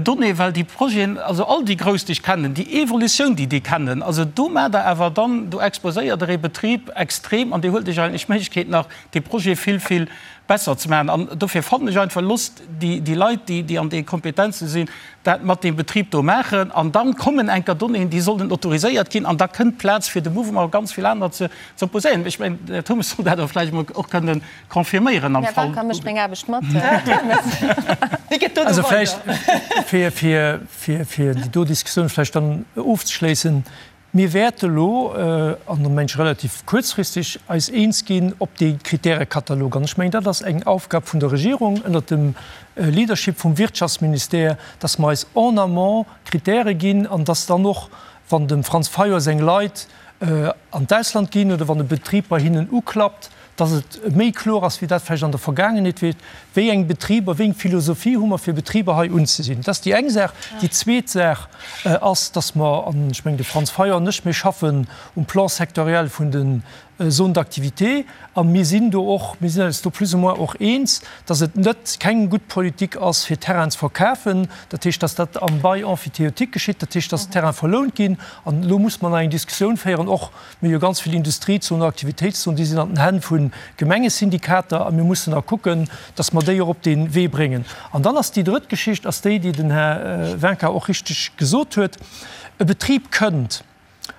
Donnée, well déi Projeten, also all déi grouss, déi ech kennen, déi Evolutioun, déi déi kennen, also do maacht Der awer dann, do exposéiert Der ee Betrib extrem an Dir huelt Iech eigentlech d'Méiglechkeet nach, dee Projet vill, vill besser ze maachen. An dofir fannen ech einfach, loosst déi, déi Leit, déi, déi an de Kompetenze sinn, dat mat deem Betrib do maachen an dann kommen enker Donnéeën, déi sollen autoriséiert ginn an da kënnt Plaz fir de Mouvement a ganz vill aner ze opposéieren. Ech mengen, den Här Turmes soll dat och vläicht emol och kënnen Confirméieren am Fall. Här mécht meng Aarbecht mat. Also vläicht, fir, fir, fir, fir déi do Diskussioun vläicht dann ofzeschléissen, Mir wäerte elo, an da mengen ech relativ kuerzfristeg, eis eens ginn op dee Kritäre-Katalog. An ech mengen, dat ass eng Aufgab vun der Regierung ënnert dem Leadership vum Wirtschaftsministère, dass mer eis en amont Kritäre ginn an dass dann och, wann dem Franz Fayot seng Leit an d'Ausland ginn oder wann e Betrib bei hinnen uklappt, dass et méi kloer ass, wéi dat vläicht an der Vergaangenheet war, wéi eng Betriber, wéi eng Philosophie hu mer, fir Betriber hei unzesinn. Dat ass déi eng Saach. Déi zweet Saach ass, dass mer, an ech mengen, de Franz Fayot an ech, mir schaffen um Plan sectoriel vun den Zones d'activité a mir sinn do och, mir sinn eis do plus ou moins och eens, dass et net keng gutt Politik ass, fir Terrainen ze verkafen. Dat heescht, dass dat am Bail emphytéotique geschitt, dat heescht, dass Terraine verlount ginn. An elo muss mer nach eng Diskussioun féieren, och Mir hu jo ganz vill Industriezonen, Aktivitéitszonen, déi sinn an den Hänn vu Gemengesyndikater a mir mussen da kucken, dass mer déi och op dee Wee bréngen. An dann ass déi drëtt Geschicht ass déi, déi den Här Wincker och richteg gesot huet, E Betrib kënnt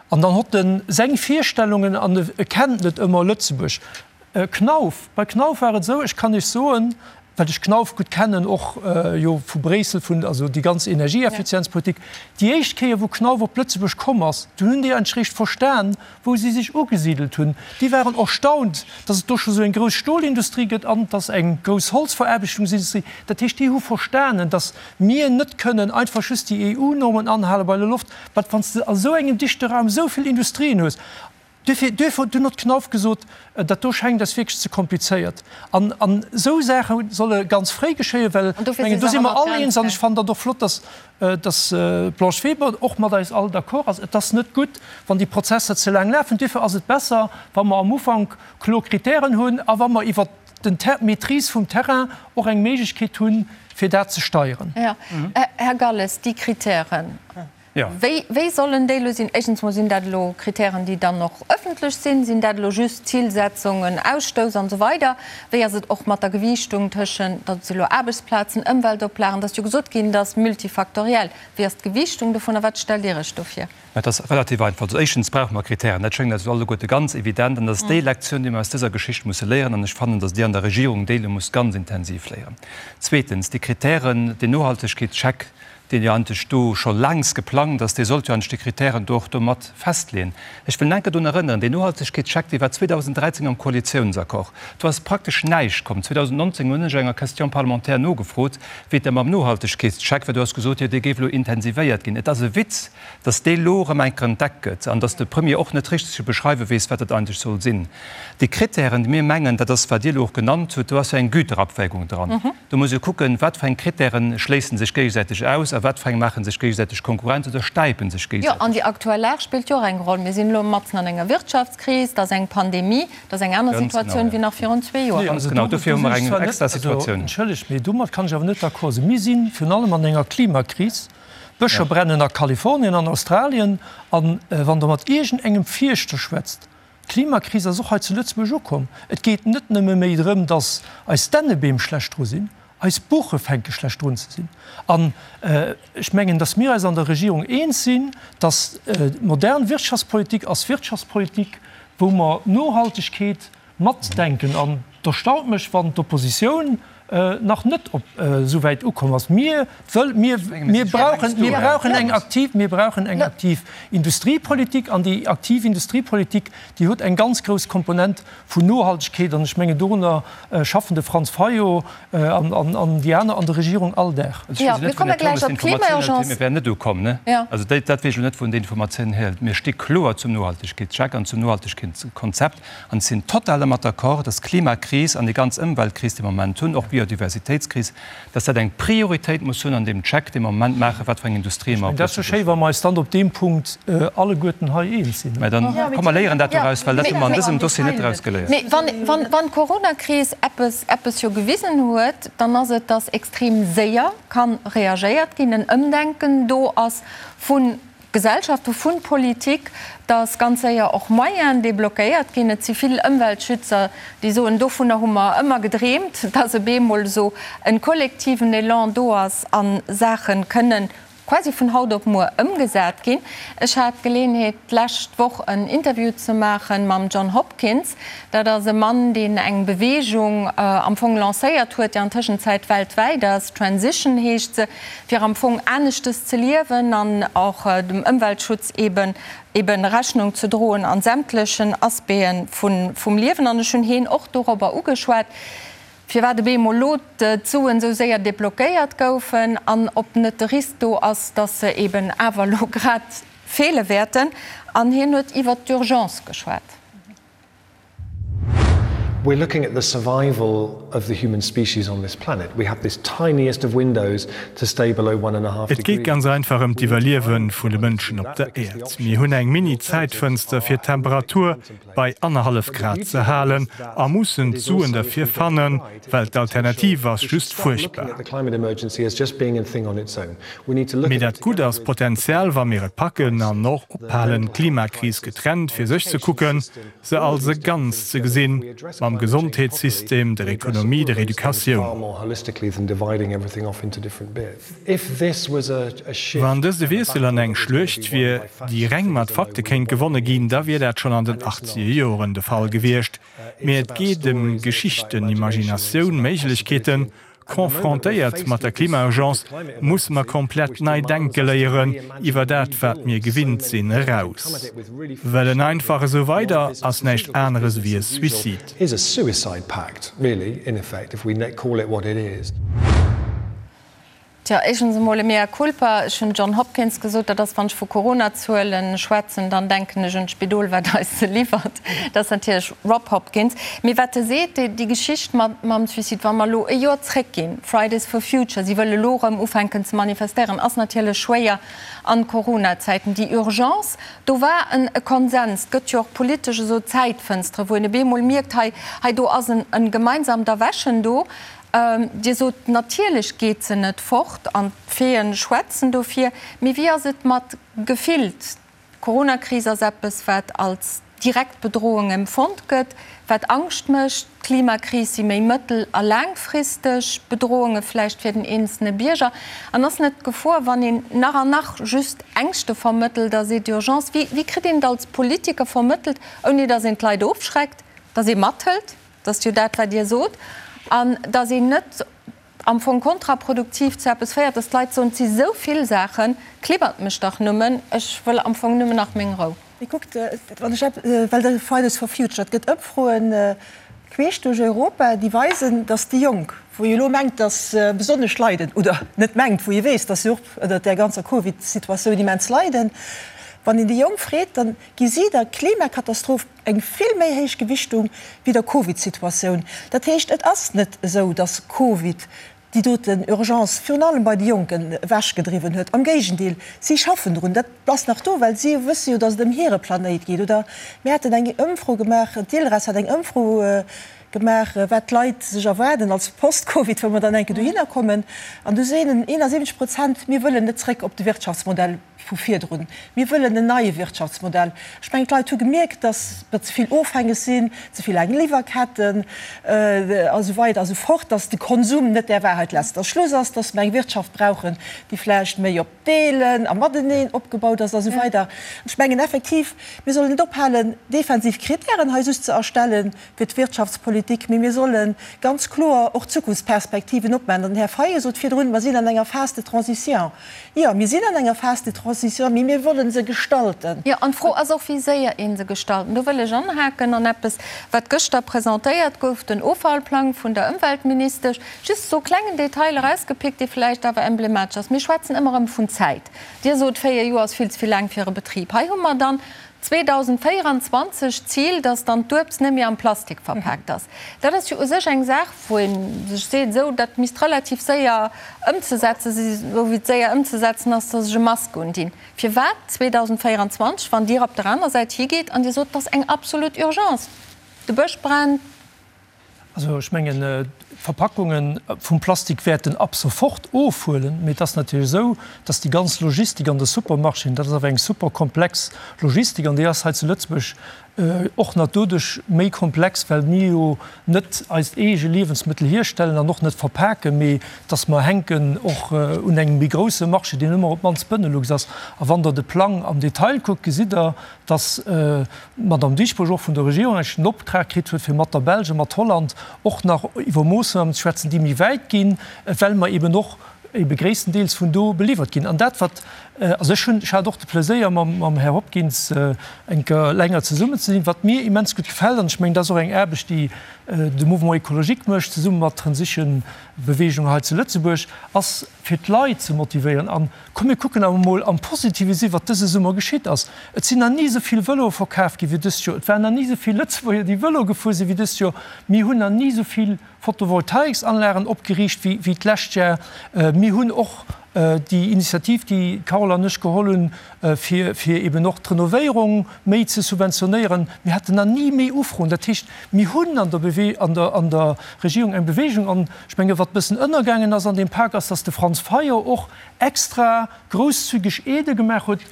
an dann hott en seng Virstellungen an e kennt net ëmmer Lëtzebuerg. Knauf, bei Knauf war et esou, ech kann Iech soen, well ech Knauf gutt kennen, och jo vu Bréissel, vun, also déi ganz Energieeffizienzpolitik, déi éischt Kéier wou Knauf op Lëtzebuerg komm ass, dunn hunn déi eigentlech réischt verstan, wou si sech ugesidelt hunn. Déi waren erstaunt, datt et do scho sou eng grouss Stolindustrie gëtt an datt eng grouss Holzveraarbechtungsindustrie. Dat heescht, déi hu verstanen, datt mir net kënnen einfach just déi EU-Normen anhale bei der Loft, wat wann s de a sou engem dichte Raum esou vill Industrien hues. Duerfir, duerfir huet dunn och d'Knauf gesot, dat do schengt eis wierklech ze komplizéiert. An, an esou Saache solle ganz fréi geschéien, well ech mengen, do si mer all eens, an ech fannen dat och flott, dass, dass d'Blanche Weber och mat eis all d'accord ass, et ass net gutt, wann déi Prozesser ze laang lafen. Duerfir ass et besser, wa mer am Ufank kloer Kritären hunn a wa mer iwwert den Ter, d'Maîtrise vum Terrain och eng Méiglechkeet hunn, fir dat ze steieren. Jo. Här Galles, déi Kritären. Wéi, wéi sollen déi elo sinn? Éischtens mol, sinn dat elo Kritären, déi dann och ëffentlech sinn? Sinn dat elo just Zilsetzungen, Ausstouss an esou weider? Wéi ass et och mat der Gewiichtung tëschent, dat si elo Aarbechtsplazen, Ëmweltoplagen, et ass jo gesot ginn, dat ass multifaktoriell. Wéi ass d'Gewiichtung dovun a wat stellt Dir Iech do vir? Mä et ass relativ einfach. Also éischtens brauche mer Kritären. Dat schéngt eis elo alleguerte ganz evident an dat ass déi Lektioun, déi mer aus dëser Geschicht musse léieren an ech fannen, datt Dir an der Regierung déi elo musst ganz intensiv léieren. Zweetens, déi Kritären, deen Nohaltegkeetscheck, deen jo eigentlech do scho laangs geplangt ass, dee sollt jo eigentlech déi Kritären do och do mat festleeën. Ech wëll enke drun erënneren, deen Nohaltegkeetscheck, dee war 2013 am Koalitiounsaccord. Do ass praktesch näischt komm. 2019 hunn ech enger Question parlementaire nogefrot, wéi et da mam Nohaltegkeetscheck war. Do ass gesot, jo, dee géif elo intensivéiert ginn. Et ass e Witz, dass dee lo erëm eng Kéier entdeckt gëtt an dass de Premier och net richteg ze beschreiwe weess, wat dat eigentlech soll sinn. Déi Kritären, déi mir mengen, dat ass, wat Dir elo och genannt hutt, do ass jo eng Güterabwägung dran. Do muss ee kucken, wat fir eng Kritäre schléisse sech géigesäiteg aus a wat fir eng maache sech géigesäiteg Konkurrenz oder stäipe sech Jo, an déi géigesäiteg. aktuell Lag spillt jo och eng Roll. Mir sinn elo matzen an enger Wirtschaftskris, et ass eng Pandemie, et ass eng aner Ganz genau, Situatioun ja. wéi nach virun zwee Joer. Ganz genau, dofir hu mer eng extra Situatioun. Entschëllegt, mee domat kann ech awer net d'accord sinn. Mir si virun allem an enger Klimakris. D'Bëscher brennen a Kalifornien an Australien. A wann Der mat iergendengem Fierschter schwätzt, D'Klimakris ass och hei zu Lëtzebuerg ukomm. Et geet net nëmme méi drëm, datt eis Dännebeem schlecht dru sinn, eis Buche fänke schlecht drun ze sinn. An ech mengen, datt mir eis an der Regierung eens sinn, datt modern Wirtschaftspolitik ass Wirtschaftspolitik, wou mer Nohaltegkeet matdenken. An et erstaunt mech, wann d'Oppositioun nach net op esou wäit ukomm ass. Mir wëll, mir, mir brauchen, mir brauchen eng aktiv, mir brauchen eng aktiv Industriepolitik. An déi aktiv Industriepolitik, déi huet eng ganz grouss Komponent vun Nohaltegkeet. An ech mengen, dorunner schaffen de Franz Fayot an, an, an déi aner an der Regierung all Dag. Also ech weess net, wou den Här Turmes d'Informatioun huet, mir wären net ukomm, ne? Also dat, dat weess ech elo net, wou en déi Informatioun hierhëlt. Mir sti kloer zum Nohaltegkeetscheck an zum Nohaltegkeetskonzept. An ech sinn total dermat d'accord, dass d'Klimakris an déi ganz Ëmweltkris, déi mer am Moment hunn, och d'Biodiversitéitskris, dass dat eng Prioritéit muss hunn an deem Check, dee mer am Moment maachen, wat fir eng Industrie mer op Lëtzebuerg. Dat ass jo schéi, wa mer eis dann op deem Punkt alleguerten hei eens sinn. Mä dann, komm mer léieren dat doraus, well dat hu mer an dësem Dossier net draus geléiert. Mee wann d'Coronakris eppes, eppes jo gewisen huet, dann ass et, dass extrem séier ka reagéiert ginn, en Ëmdenken do ass vu Gesellschaft, vun Politik, dass ganz séier och Moyenen deblockéiert ginn. Et si vill Ëmweltschützer, déi soen, dovunner hu mer ëmmer gedreemt, dass op eemol esou e kollektiven Elan do ass a Saache kënnen quasi vun haut op muer ëmgesat ginn. Ech hat d'Geleeënheet, d'lescht Woch en Interview ze maache mam John Hopkins. Dat ass e Mann, deen eng Beweegung am Fong lancéiert huet, déi an Tëschenzäit weltwäit ass, Transition heescht se, fir am Fong aneschtes ze liewen an och dem Ëmweltschutz eben eben Rechnung ze droen an sämtlechen Aspecten vun vum Liewen. An ech hunn heen och dorobber ugeschwat, firwat op eemol elo d'Suen esou séier deblockéiert goufen an ob net de Risk do ass, dass se eben awer elo grad feele wäerten. An hien huet iwwert d'Urgence geschwat. We're looking at the survival of the human species on this planet. We have this tiniest of windows to stay below one and a half Et geet ganz einfach ëm d'Iwwerliewe vun de Mënschen op der Äerd. Mir hunn eng Mini-Zäitfënster fir d'Temperatur bei annerhallef Grad ze halen a mussen d'Suen derfir fannen, well d'Alternativ ass just fuerchtbar. Mee dat Gutt ass potenziell, wa mir et packen an och ophalen, d'Klimakris getrennt fir sech ze kucken, se als e Ganzt ze gesinn, mam Gesondheetssystem, der Ekonomie, der Educatioun. Wann dëst e Wiessel an eng Schluecht wier, déi reng mat Fakte kéint gewonne ginn, da wier dat schonn an den achtzeger Joren de Fall gewiescht. Mee et geet ëm Geschichten, Imaginatioun, Méiglechkeeten. Confrontéiert mat der Klimaurgence musse mer komplett nei denke léieren, iwwer dat wat mir gewinnt sinn eraus. Well en einfach esou weider ass näischt aneres ewéi e Suicide. Tjo, éischtens emol e mea culpa. Ech hunn John Hopkins gesot, dat ass, wann ech vu Corona-Zuele schwätzen, dann denken ech un d'Spidol, wat eis se liwwert. Dat ass natierlech Rob Hopkins. Mee wat e seet, déi Geschicht mam Suicide, wa mer elo e Joer zréckginn, Fridays for Future, si wëlle elo erëm ufänken ze manifestéieren, ass natierlech schwéier an Corona-Zäiten. Déi Urgence, do war en e Konsens. Et gëtt jo och politesch esou Zäitfënstere, wou een op eemol mierkt, hei, hei do ass en gemeinsamt Erwächen do. Dir sot, natierlech geet se net fort an d'Faiten schwätzen dofir. Mee wéi ass et mat gefillt? D'Coronakris ass eppes, wat als direkt Bedrohung empfonnt gëtt, wat Angscht mécht. D'Klimakris si méi mëttel a laangfristeg Bedrohunge vläicht fir den eenzelne Bierger. An ass net d'Gefor, wann een nach an nach just Ängschte vermëttelt a seet Urgence, wéi, wéi kritt een et als Politiker vermëttelt, ouni datt een d'Leit ofschreckt, datt ee mathëlt, dat ass jo dat, wat Dir sot, an datt een net am Fong kontraproduktiv zu eppes féiert, dass d'Leit soen, et si sou vill Saachen, klibbert mech dach nëmmen, ech wëll am Fong nëmmen nach meng Rou. Mee kuckt, wann ech epp, well de Fridays for Future, et gëtt Ëmfroen queesch duerch Europa, déi weisen, dass déi Jonk, wou ee elo mengt, dass se besonnesch leiden, oder net mengt, wou ee weess, dass se och ënnert där ganzer Covid-Situatioun immens leiden, wann een déi Jonk freet, dann gi si der Klimakatastroph eng vill méi héich Gewichtung wéi der Covid-Situatioun. Dat heescht, et ass net esou, datt Covid déi doten Urgence virun allem bei de Jonken ewechgedriwwen huet. Am Géigendeel, si schaffen drun. Dat ass nach do, well si wësse jo, datt et ëm hire Planéit geet. Oder mir haten eng Ëmfro gemaach, d'ILReS hat eng Ëmfro gemaach, wat d'Leit sech erwaarden als Post-Covid, wou mer dann eng Kéier dohinner kommen. An du seenen 71 Prozent, mir wëllen net zréck op de Wirtschaftsmodell. vu virdrun. Mir wëllen en neie Wirtschaftsmodell. Ech mengen, d'Leit hu gemierkt, datt mer ze vill ofhängeg sinn, ze vill laang Liwwerketten a sou weider a sou fort, datt de Konsum net der Wahrheit letzter Schluss ass, datt mer eng Wirtschaft brauchen, déi vläicht méi op Deelen a Mateneen opgebaut ass a sou weider. Ech mengen effektiv, mir sollen net ophalen, defensiv Kritären hei just ze erstellen fir d'Wirtschaftspolitik, mee mir solle ganz kloer och Zukunftsperspektiven opmaachen. An den Här Fayot sot virdrun, mer sinn an enger Phase de transition. Jo, mir sinn an enger Phase de transition, mee mir wëlle se gestalten. Jo, an d'Fro ass och, wéi séier ee se gestalten. Do wëll ech anhaken an eppes, wat gëschter presentéiert gouf, den Offallplang vun der Ëmweltministesch. Just esou klengen Detail erausgepickt, dee vläicht awer emblematesch ass. Mir schwätzen ëmmer erëm vun Zäit. Dir sot, 4 Joer ass vill ze vill laang fir e Betrib. Hei hu mer dann 2024 d'Zil, dass dann d'Uebst net méi am Plastik verpaakt ass. Dat ass jo u sech eng Saach, wou ee sech seet, esou, dat misst relativ séier ëmzesetze si, esou wéi et séier ëmzesetzen ass, dass ech e Mask undinn. Firwat 2024, wann Dir op der aner Säit higeet an Dir sot, et ass eng absolut Urgence, de Bësch brennt, Also ech mengen, d'Verpackunge vum Plastik wäerten ab sofort ofhuelen, mee et ass natierlech esou, dass déi ganz Logistik an de Supermarchéen, dat ass awer eng super komplex Logistik an déi ass hei zu Lëtzebuerg och nach doduerch méi komplex, well mir jo net eist eege Liewensmëttel hierstellen an och net verpaken, mee dass mer hänken och un engem méi grousse Marché, deen ëmmer op d'mannst Benelux ass. A wann Der de Plang am Detail kuckt, gesitt Der, dass d'Madame Dieschbourg och vun der Regierung eigentlech den Optrag kritt huet, fir mat der Belsch a mat Holland och nach iwwer Moossnamen ze schwätzen, déi méi wäit ginn, well mer eben och ebe gréisstendeels vun do beliwwert ginn. An dat, wat, also ech hunn, ech hat och de Pleséier, mam, mam Här Hopkins eng Kéier länger zesummen ze sinn, wat mir immens gutt gefält, an ech mengen, dat ass och eng Aarbecht, déi de Mouvement écologique mécht, zesumme mat Transition Beweegung hei zu Lëtzebuerg, ass fir d'Leit ze motivéieren an, Komm mir kucken awer mol am Positive si wat dëse Summer geschitt ass. Et sinn nach ni esou vill Vëloe verkaf gi wéi dëst Joer. Et waren nach ni esou vill Lëtzebuerger déi Vëlo gefuer sinn wéi dëst Joer. Mir hunn nach ni esou vill Photovoltaiksanlagen opgeriicht wéi wéi d'lescht Jar. Mir hunn och déi Initiativ déi d'Carole an ech geholl hunn fir fir eben och d'Renovéierung méi ze subventionéieren. Mir haten nach ni méi Ufroen. Dat heescht mir hunn an der Bewe an der an der Regierung eng Bewegung an ech menge wat bëssen ënnergaangen ass an deem Pak ass, datt de Franz Fayot och extra grousszügeg Aidë gemaach huet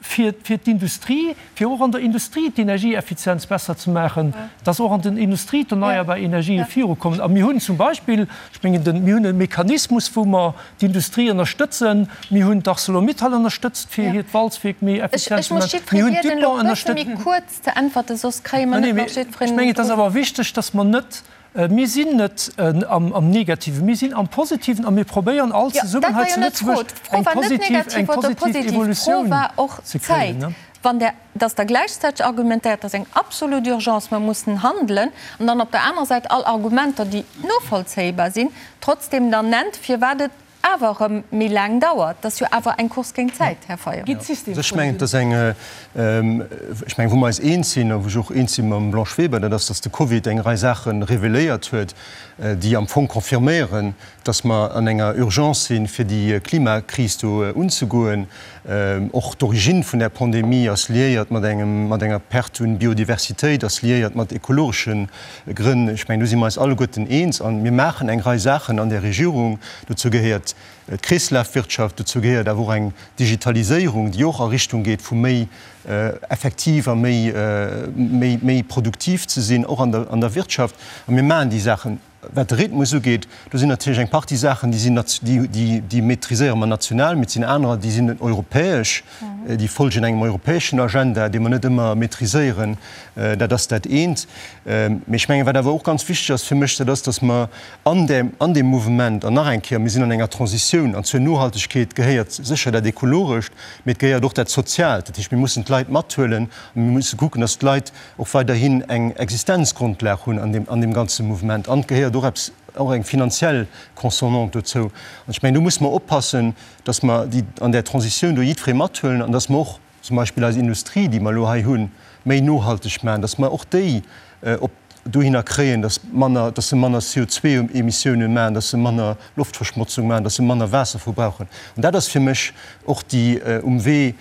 fir fir d'Industrie, fir och an der Industrie d'Energieeffizienz besser ze maachen, dass och an den Industrie d'erneierbar Energië virukommen. A mir hunn zum Beispill, ech mengen den, mir hunn e Mechanismus, wou mer d'Industrie ënnerstëtzen. Mir hunn d'Arcelor-Mittal ënnerstëtzt, fir hiert Walzwierk méi effizient ze maachen. Mir hunn d'Dupont ënnerstëtzt. Ech mengen, et ass awer wichteg, dass mer net Mir sinn net am Negativen, mir sinn am Positiven a mir probéieren all zesummen hei zu Lëtzebuerg eng positiv, eng positiv Evolutioun ze kréien. Wann Der, dass Der gläichzäiteg argumentéiert, dat ass eng absolut Urgence, mer mussen handelen, an dann op der anerer Säit all Argumenter, déi novollzéibar sinn, trotzdem dann nennt, firwat et. awer erëm méi laang dauert. Dat ass jo awer eng Course géint d'Zäit, Här Fayot. Ech mengen, et ass eng, ech mengen, wou mer eis eens sinn a wou ech och eens si mam Blanche Weber, dat ass, datt de Covid eng Rei Saache reveléiert huet, déi am Fong confirméieren, datt mer an enger Urgence sinn, fir déi Klimakris do unzegoen. Och d'Origine vun där Pandemie ass liéiert mat engem, mat enger Perte un Biodiversitéit, ass liéiert mat ekologesche Grënn. Ech mengen, do si mer eis alleguerten eens. A mir maachen eng Rei Saachen an där Regierung. Dozou gehéiert d'Kreeslafwirtschaft, dozou gehéiert awer och eng Digitaliséierung, déi och a Richtung geet vu méi effektiv a méi, méi, méi produktiv ze sinn, och an der, an der Wirtschaft. A mir maachen déi Saachen. Wat de Rhythmus ugeet, do sinn natierlech eng Partie Saachen, déi sinn, déi, déi maîtriséiere mer national, mee et sinn anerer, déi sinn europäesch, déi folgen engem europäeschen Agenda, dee mer net ëmmer maîtriséieren. Dat ass dat eent. Mee ech mengen, wat awer och ganz wichteg ass fir mech, dat ass, datt mer an där, an deem Mouvement, an nach eng Kéier, mir sinn an enger Transitioun, an zur Nohaltegkeet gehéiert sécher dat Ekologescht, mee et gehéiert och dat Soziaalt. Dat heescht, mir mussen d'Leit mathuelen a mir musse kucken, datt d'Leit och weiderhin eng Existenzgrondlag hunn an deem, an deem ganze Mouvement. An et gehéiert och eppes, och eng finanziell Consonante dozou. An ech mengen, do musse mer oppassen, dass mer déi an där Transitioun do jiddweree mathuelen an dass mer och zum Beispill eis Industrie, déi mer elo hei hunn, méi nohalteg maachen, dass mer och déi op dohinner kréien, dass manner, dass se manner CO2-Emissiounen maachen, dass se manner Loftverschmotzung maachen, dass se manner Waasser verbrauchen. An dat ass fir mech och déi um Wee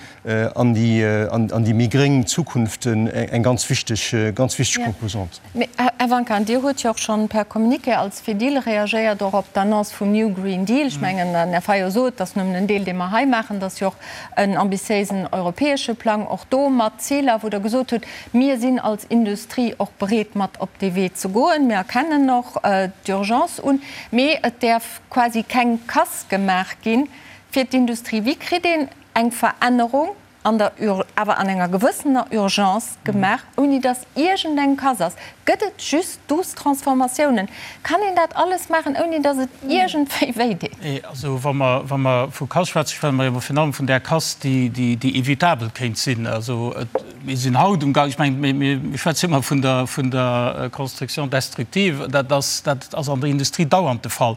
an déi, an déi méi gréng Zukunft eng ganz wichteg, ganz wichteg Composante. Mee, Här Wanka, an Dir hutt jo och schonn per Communiqué als Fedil reagéiert och op d'Annonce vum New Green Deal. Ech mengen, den Här Fayot sot, et ass nëmmen en Deel, dee mer hei maachen, et ass jo och en ambitiéisen europäesche Plang, och do mat Ziler, wou Der gesot hutt, Mir sinn als Industrie och bereet, mat op dee Wee ze goen. Mir erkennen och d'Urgence un. Mee et däerf quasi keng Casse gemaach gi fir d'Industrie. Wéi kritt een eng Verännerung an der, awer an enger gewëssener Urgence gemaach, ouni datt iergendeng Casse ass? Gëtt et just douce Transformatiounen? Kann een dat alles maachen, ouni datt et iergendwéi wéi deet? Nee, also wa mer, wa mer vu Casse schwätzen, schwätze mer jo virun allem vun där Casse, déi, déi, déi evitabel kéint sinn. Also et, mir sinn haut um Gang, ech mengen, mir, mir schwätzen ëmmer vun der, vun der Construction destructive, dat ass, dat ass an der Industrie dauernd de Fall.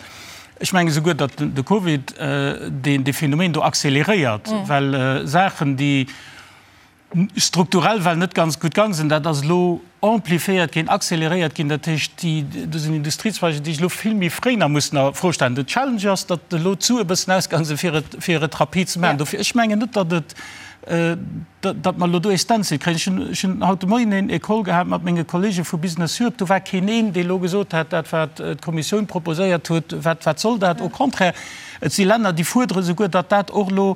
Ech menge souguer, datt de Covid deen, dee Phänomen do accéléréiert, well Saachen, déi, strukturell well net ganz gutt gang sinn, dat ass elo amplifiéiert ginn, accéléréiert ginn. Dat heescht, déi, do sinn Industriezweiger, déi sech elo vill méi fréi nach mussen a Fro stellen. Den Challenge ass, datt elo d'Sue e bëssen ausgaang sinn, fir et, fir et rapid ze maachen. Dofir, ech mengen net, datt et, datt mer elo do ee Stencil kréien. Ech hunn, ech hunn haut de Moien een e Call gehat mat menge Kollege vu Business Europe. Do war keen een, dee elo gesot hätt, dat wat d'Kommissioun proposéiert huet, wat, wat soll dat? Au contraire, et si Länner, déi fuerdere souguer, datt dat och elo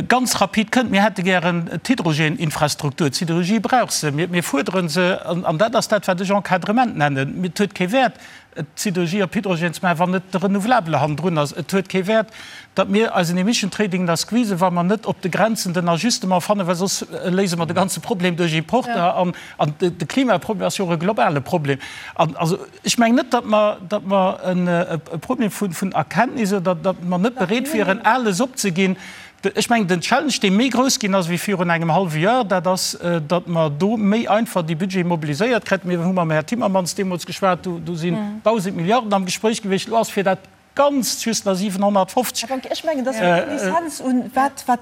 Ganz rapid kënnt. Mir hätte gären d'Hydrogeninfrastruktur. D'Siderurgie brauch se. Mir fuerdere se. An dat ass dat, wat ech Encadrement nennen. Et huet kee Wäert, d'Siderurgie op Hydrogen ze maachen, wann net de Renouvelabele hannendrun ass. Et huet kee Wäert, datt mir eisen Emission Trading da squeezen, wa mer net op de Grenzen den Ajustement fannen, well soss léise mer de ganze Problem duerch Importer. An de Klimaproblem ass jo och e globale Problem. An also. Ech mengen net, datt mer, datt mer e Problem vun Erkenntnis oder datt mer net bereet wieren, alles opzeginn. Ech mengen, den Challenge, dee méi grouss ginn ass wéi virun engem hallwe Joer, dat ass, datt mer do méi einfach déi Budgete mobiliséiert kréien. Mir hu mam Här Timmermans deemools geschwat, do sinn 1.000 Milliarden am Gespréich gewiescht. Elo ass fir dat Ganzt just nach 750. Här Wanke, ech mengen, dass mir Renaissance un, wat, wat,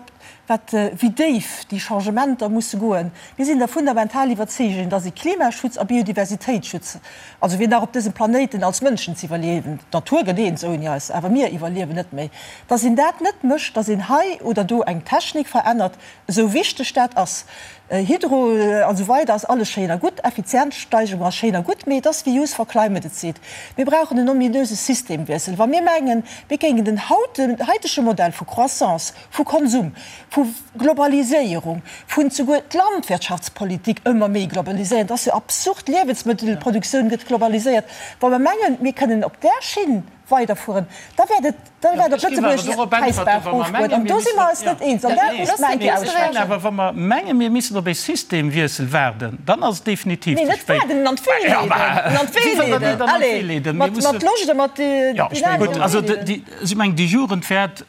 wat, wéi déif déi Changementer musse goen. Mir sinn der fundamental Iwwerzeegung, dass ee Klimaschutz a Biodiversitéitsschutz, also fir nach op dësem Planéiten als Mënschen ze iwwerliewen, d'Natur gëtt eens ouni eis, awer mir iwwerliewen net méi, dass een dat net mécht, dass een hei oder do eng Technik verännert, esou wichteg dat ass. Hydro an esou weider ass alles schéin a gutt, Effizienzsteigerung ass schéin a gutt, mee et ass wéi Youth for Climate et seet, mir brauchen en ominöse Systemwiessel. Wa mir mengen, mir géingen den haitege Modell vu Croissance, vu Konsum, vu Globaliséierung, vun souguer d'Landwirtschaftspolitik ëmmer méi globaliséieren, et ass jo absurd, d'Liewensmëttelproduktioun gëtt globaliséiert, wa mer mengen, mir kënnen op där Schinn weiderfueren, da wäert et, da wäert op Lëtzebuerg d'Präisbaach ofgoen. An do si mer eis net eens. An dat muss mer eng Kéier aussprechen. Awer wa mer mengen, mir missten op ee Systemwiessel waarden, dann ass et definitiv ze spéit. Nee, net waarden, en an d'Wee leeden. En an d'Wee leeden. Allez, mat Loscht a mat Dynamik. Also, ech mengen, déi Jugend wäert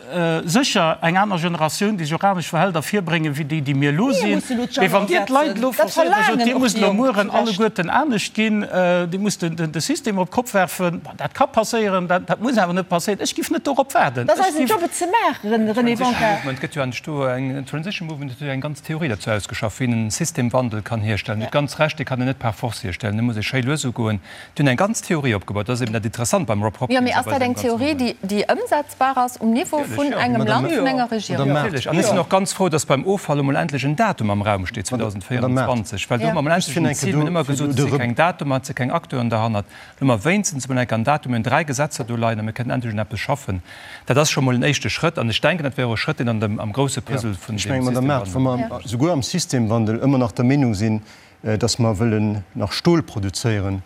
sécher eng aner Generatioun, déi sech och anescht verhält, ervirbréngen, wéi déi, déi mir elo sinn. Mee wann Dir d'Leit elo forcéiert a sot, Dir musst elo mueren alleguerten anescht ginn, Dir musst de System op d'Kopp werfen, dat ka passéieren, dat. Dat muss awer net passéieren. Ech giff net dorop waarden. Dat ass eisen Job, et ze maachen, René Bonka. Et gëtt jo eigentlech do eng, Transition Movement huet jo eng ganz Theorie derzou ausgeschafft, wéi een en Systemwandel kann hierstellen. Dir hutt ganz Recht, dee kann een net par force hierstellen, dee muss ee schéi lues ugoen. Déi hunn eng ganz Theorie opgebaut. Dat ass eben dat Interessant beim Rob Hopkins. Jo, mee ass dat eng Theorie, déi, déi ëmsetzbar ass um Niveau vun engem Land, vun enger Regierung? Natierlech. An ech sinn och ganz frou, dass beim Offall emol endlech en Datum am Raum steet, 2024, well do hu mer emol endlech en Zil. Mir hunn ëmmer gesot, et si keng Datumer, et si keng Acteuren derhannert. Elo hu mer wéinstens emol enk en Datum, mir hunn 3 Gesetzer do leien a mir kënnen endlech un eppes schaffen. Dat ass scho mol en éischte Schrëtt an ech denken, dat wär och e Schrëtt, deen an dem, am grousse Puzzle vun Ech deem mengen, Madame Mart, wa Systemwandel. mer souguer am Systemwandel ëmmer nach der Meenung sinn, dass mer wëllen nach Stol produzéieren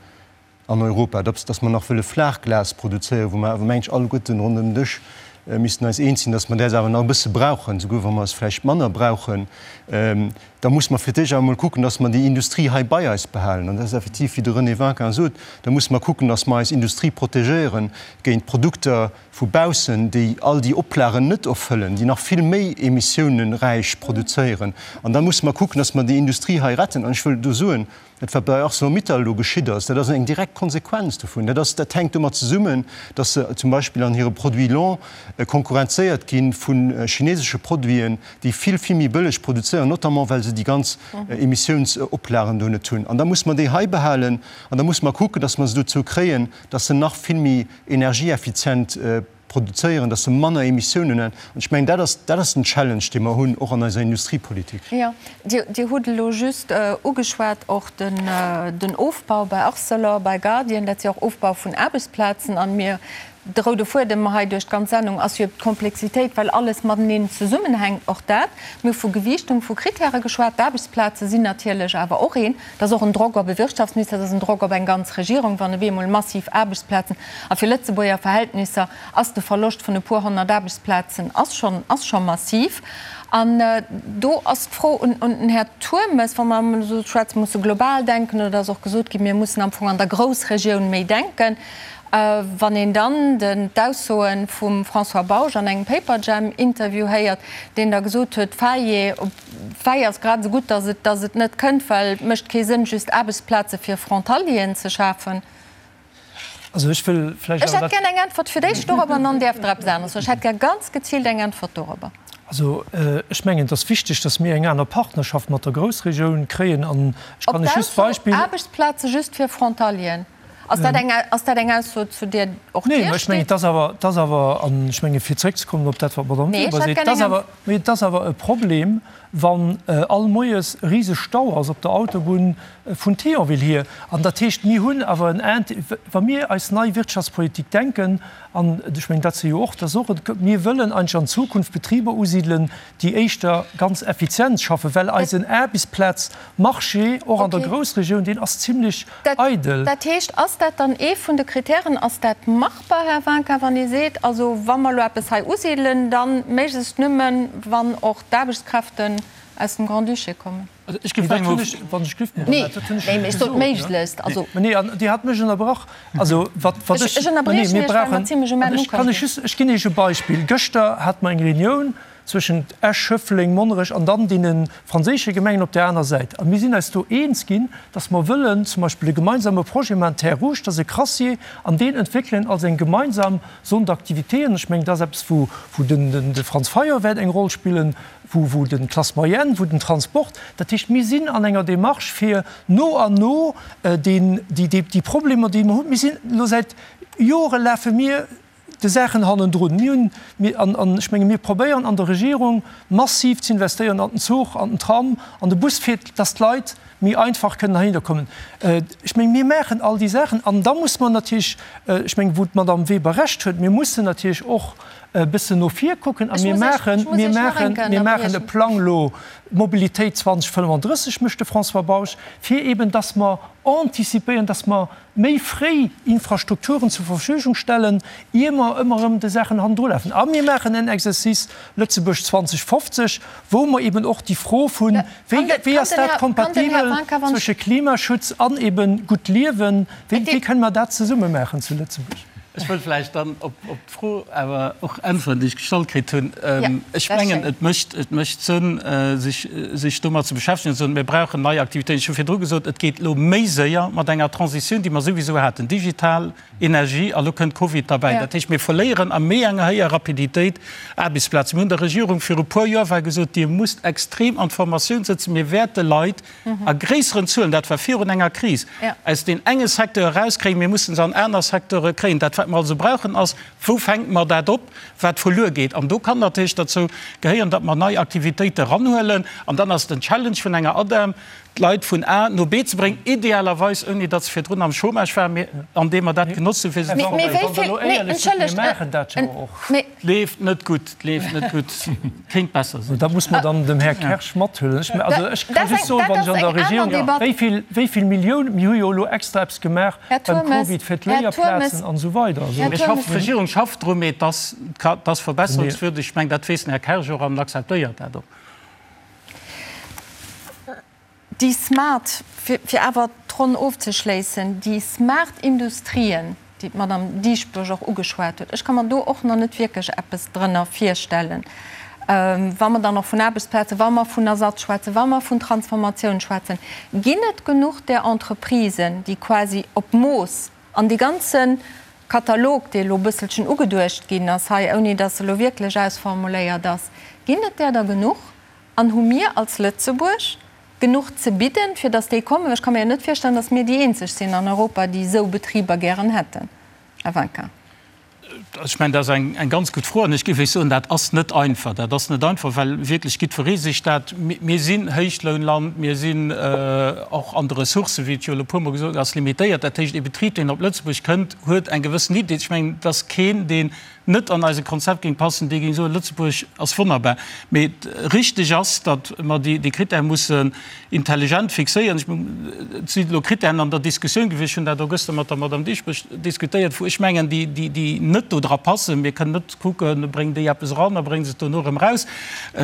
an Europa, dass mer nach wëlle Flaachglas produzéieren, wou mer awer, mengen ech, alleguerten ronderëm den Dësch missten eis eens sinn, dass mer däers awer nach e bësse brauchen, souguer wa mer es vläicht manner brauchen, da muss mer fir d'éischt awer emol kucken, dass mer déi Industrie hei bei eis behalen. An dat ass effektiv, wéi de René Winkin sot, da muss mer kucken, dass mer eis Industrie protegéiere géint Produkter, vu baussen, déi all déi Oplagen net erfëllen, déi nach vill méi emissiouneräich produzéieren. An da musse mer kucken, dass mer déi Industrie hei retten. An ech wëll do soen, dat wat bei Arcelor-Mittal elo geschitt ass, dat ass eng direkt Konsequenz dovun. Dat ass, dat hänkt domat zesummen, dass se zum Beispill an hire Produits longs konkurrenzéiert gi vu chinesesche Produiten, déi vill, vill méi bëlleg produzéieren, notamment well se déi ganz Emissiounsoplagen do net hunn. An da musse mer déi hei behalen an da musse mer kucken, dass mer se dozou kréien, dass se nach vill méi energieeffizient produzéieren, dass se manner Emissiounen hunn. An ech mengen, dat ass, dat ass den Challenge, dee mer hunn, och an eiser Industriepolitik. Jo, Dir hutt elo just ugeschwat och den Ofbau bei Arcelor, bei Guardian, dat si och Ofbau vun Aarbechtsplazen. An mir, de roude Fuedem hei duerch d'ganz Sendung ass jo d'Komplexitéit, well alles mateneen zesummenhänkt. Och dat, mir hu vu Gewiichtung vu Kritäre geschwat, d'Aarbechtsplaze sinn natierlech awer och een. Dat ass och en Drock op e Wirtschaftsminister, dat ass en Drock op eng ganz Regierung, wann op eemol massiv Aarbechtsplazen, a fir Lëtzebuerger Verhältnisser ass de Verloscht vun e puer 100 Aarbechtsplazen ass schonn, ass scho massiv. An do ass d'Fro un den Här Turmes, wa mer emol esou schwätzen, musse global denken, oder ass och gesot ginn, mir mussen am Fong an der Groussregioun méi denken. Wann een dann den d'Aussoe vum François Bausch an engem Paperjam-Interview héiert, deen da gesot huet, Faillé, Fäi ass grad esou gutt, datt et, datt et net kënnt, well et mécht kee Sënn, just Aarbechtsplaze fir Frontalieren ze schafen. Also ech wëll vläicht Ech awer hätt gär eng Äntwert fir d'éischt dorobber an dann däerft Der eppes aneres soen. Ech hätt gär ganz geziilt eng Äntwert dorobber. Also ech mengen, et ass wichteg, datt mir eng aner Partnerschaft mat der Groussregioun kréien. An ech Op kann lech just d'Ausso d'Beispill. Aarbechtsplaze just fir Frontalieren, ass dat eng, ass dat eng Ausso, zu där och Nee, Dir mä ech mengen, steet? et ass awer, et ass awer, an ech menge fir zréckzekommen op dat, wat d'Madame Nee, ech Weber hätt seet, gär et ass eng awer, mee et ass awer e Problem, wann all Moies e riseg Stau ass op der Autobunn vun Thionville hier. An dat heescht, mir hunn awer en Int-, wa mir eis nei Wirtschaftspolitik denken, an ech mengen, dat si jo och, dat ass och e, mir wëllen eigentlech an Zukunft Betriber usidelen, déi éischter ganz effizient schaffen, well eisen Aarbechtsplazmarché och an der Groussregioun, deen ass zimlech eidel. Dat heescht, ass dat dann ee vun de Kritären, ass dat machbar, Här Winkin, wann ee seet, also wa mer elo eppes hei usidelen, da méiglechst nëmmen, wann och d'Aarbechtskräften aus dem Grand-Duché kommen? Also ech géif mengen, Wann ech giff, Nee, nee, mee ech sot méiglechst, also. Nee, an Dir hat mech ënnerbrach. Also wat, wat ech. Ech ënnerbriechen Iech, well mer zimlech um Enn ukomm sinn. Ech, ech ginn Iech e Beispill. Gëschter hate mer eng Reunioun zwëschent Esch, Schëffleng, Monnerech an dann deene franséische Gemengen op där aner Säit. A mir sinn eis do eens ginn, dass mer wëllen zum Beispill e gemeinsame Projet maachen, Terres Rouges, dat ass e Crassier, an deen entwéckelen als eng gemeinsam Zone d'activité. An ech mengen, dat ass eppes, wou, wou den, de Franz Fayot wäert eng Roll spillen, wou, wou den d'Classe moyenne, wou den Transport. Dat heescht, mir sinn an enger Démarche, fir no an no deen, déi, déi, déi Problemer, déi mer hunn, mir sinn elo säit Jore lafe mir de Saachen hannendrun. Mir hunn, mir, an, an ech menge mir probéieren an der Regierung massiv ze investéieren an den Zuch, an den Tram, an de Bus, fir datt d'Leit méi einfach kënnen heihinner kommen. Ech menge mir maachen all déi Saachen. An da muss mer natierlech, ech menge wou d'Madame Weber Recht huet, mir mussen natierlech och e bëssen no vir kucken a mir maachen, mir maachen, mir maachen e Plang elo Mobilitéit 2035, mécht de François Bausch, fir eben datt mer anticipéieren, datt mer méi fréi Infrastrukturen zur Verfügung stellen, ier mer ëmmer erëm de Saachen hannendrulafen. A mir maachen en Exercice Lëtzebuerg 2050, wou mer eben och déi Fro vun, wéi, wéi ass dat kompatibel zwësche Klimaschutz an eben gutt Liewen, wéi, wéi kënne mer dat zesumme maachen zu Lëtzebuerg? Ech wëll vläicht dann op d'Fro awer och äntweren, déi ech gestallt kritt hunn. Ech mengen, et mécht, et mécht Sënn, sech, sech domat ze beschäftegen an ze soen, mir brauchen nei Aktivitéiten. Ech hu virdru gesot, et geet elo méi séier mat enger Transitioun, déi mer souwisou haten, digital Energie, a lo kënnt Covid derbäi. Dat heescht, mir verléieren a méi enger héijer Rapiditéit Aarbechtsplazen. Mir hunn der Regierung viru puer Joer war gesot, Dir musst extrem an d'Formatioun sëtzen, mir wäerte Leit a gréisseren Zuelen, dat war virun enger Kris, aus deen enge Secteur erauskréien, mir mussen se an aner Secteure kréien. Dat, wat mer also brauchen, ass, Wou fänke mer dat op, wat verluer geet? An do kann natierlech derzou gehéieren, datt mer nei Aktivitéite eranhuelen. An dann ass den Challenge vun enger ADEM, d'Leit vun A no B ze bréngen, idealerweis ouni datt se virdrun am Chômage waren, mee andeem mer dat genotzt hunn, fir se ze forméieren. Leeft net gutt, leeft net gutt, kéint besser sinn. Dat muss mer dann dem Här Kersch mathuelen. Ech, also ech ka just soen, wann ech an der Regierung, wéi vill, wéi vill Milliounen, mir hu jo elo extra eppes gemaach beim Covid fir d'Léierplazen an esou weider. Also. Mir schaffen, d'Regierung schafft dru, mee et ass, et ass verbesserungswürdig. Ech mengen, dat weess den Här Kersch och an akzeptéiert dat och. Déi smart, fir awer d'Ronn ofzeschléissen, déi smart Industrien, déi d'Madame Dieschbourg och ugeschwat huet, ech ka mer do och nach net wierklech eppes drënner virstellen, wa mer dann och vun Aarbechtsplazen, wa mer vun Ersatz schwätzen, wa mer vun Transformatioun schwätzen. Ginn et genuch där Entreprisen, déi quasi op Mooss an dee ganze Katalog, dee elo e bësselchen ugeduecht ginn ass hei, ouni datt e elo wierklech ausformuléiert ass, ginn et där der genuch? An hu mir als Lëtzebuerg genuch ze bidden, fir datt déi kommen? Well ech ka mir jo net virstellen, datt mir déi eenzeg sinn an Europa, déi esou Betriber gären hätten. Här Winkin. Ech mengen, dat ass eng ganz gutt Fro. An ech géif Iech soen, dat ass net einfach. Dat ass net einfach, well wierklech jiddweree sech dat. Mir sinn Héichlounland, mir sinn och an de Ressourcen, wéi et jo elo e puermol gesot ass, limitéiert. Dat heescht, ee Betrib, deen op Lëtzebuerg kënnt, huet eng gewëssen Idee. Ech mengen, et ass keen, deen net an eise Konzept géing passen, dee géing soen, Lëtzebuerg ass wonnerbar. Mee richteg ass, datt mer déi Critèrë mussen intelligent fixéieren. Et sinn elo Critèren an der Diskussioun gewiescht, ech hunn dat och gëschter mat der Madame Dieschbourg diskutéiert, wou ech mengen, déi net do dra passen. Mir kënnen net kucken, bréngen déi eppes eran a brénge se et dono erëm eraus.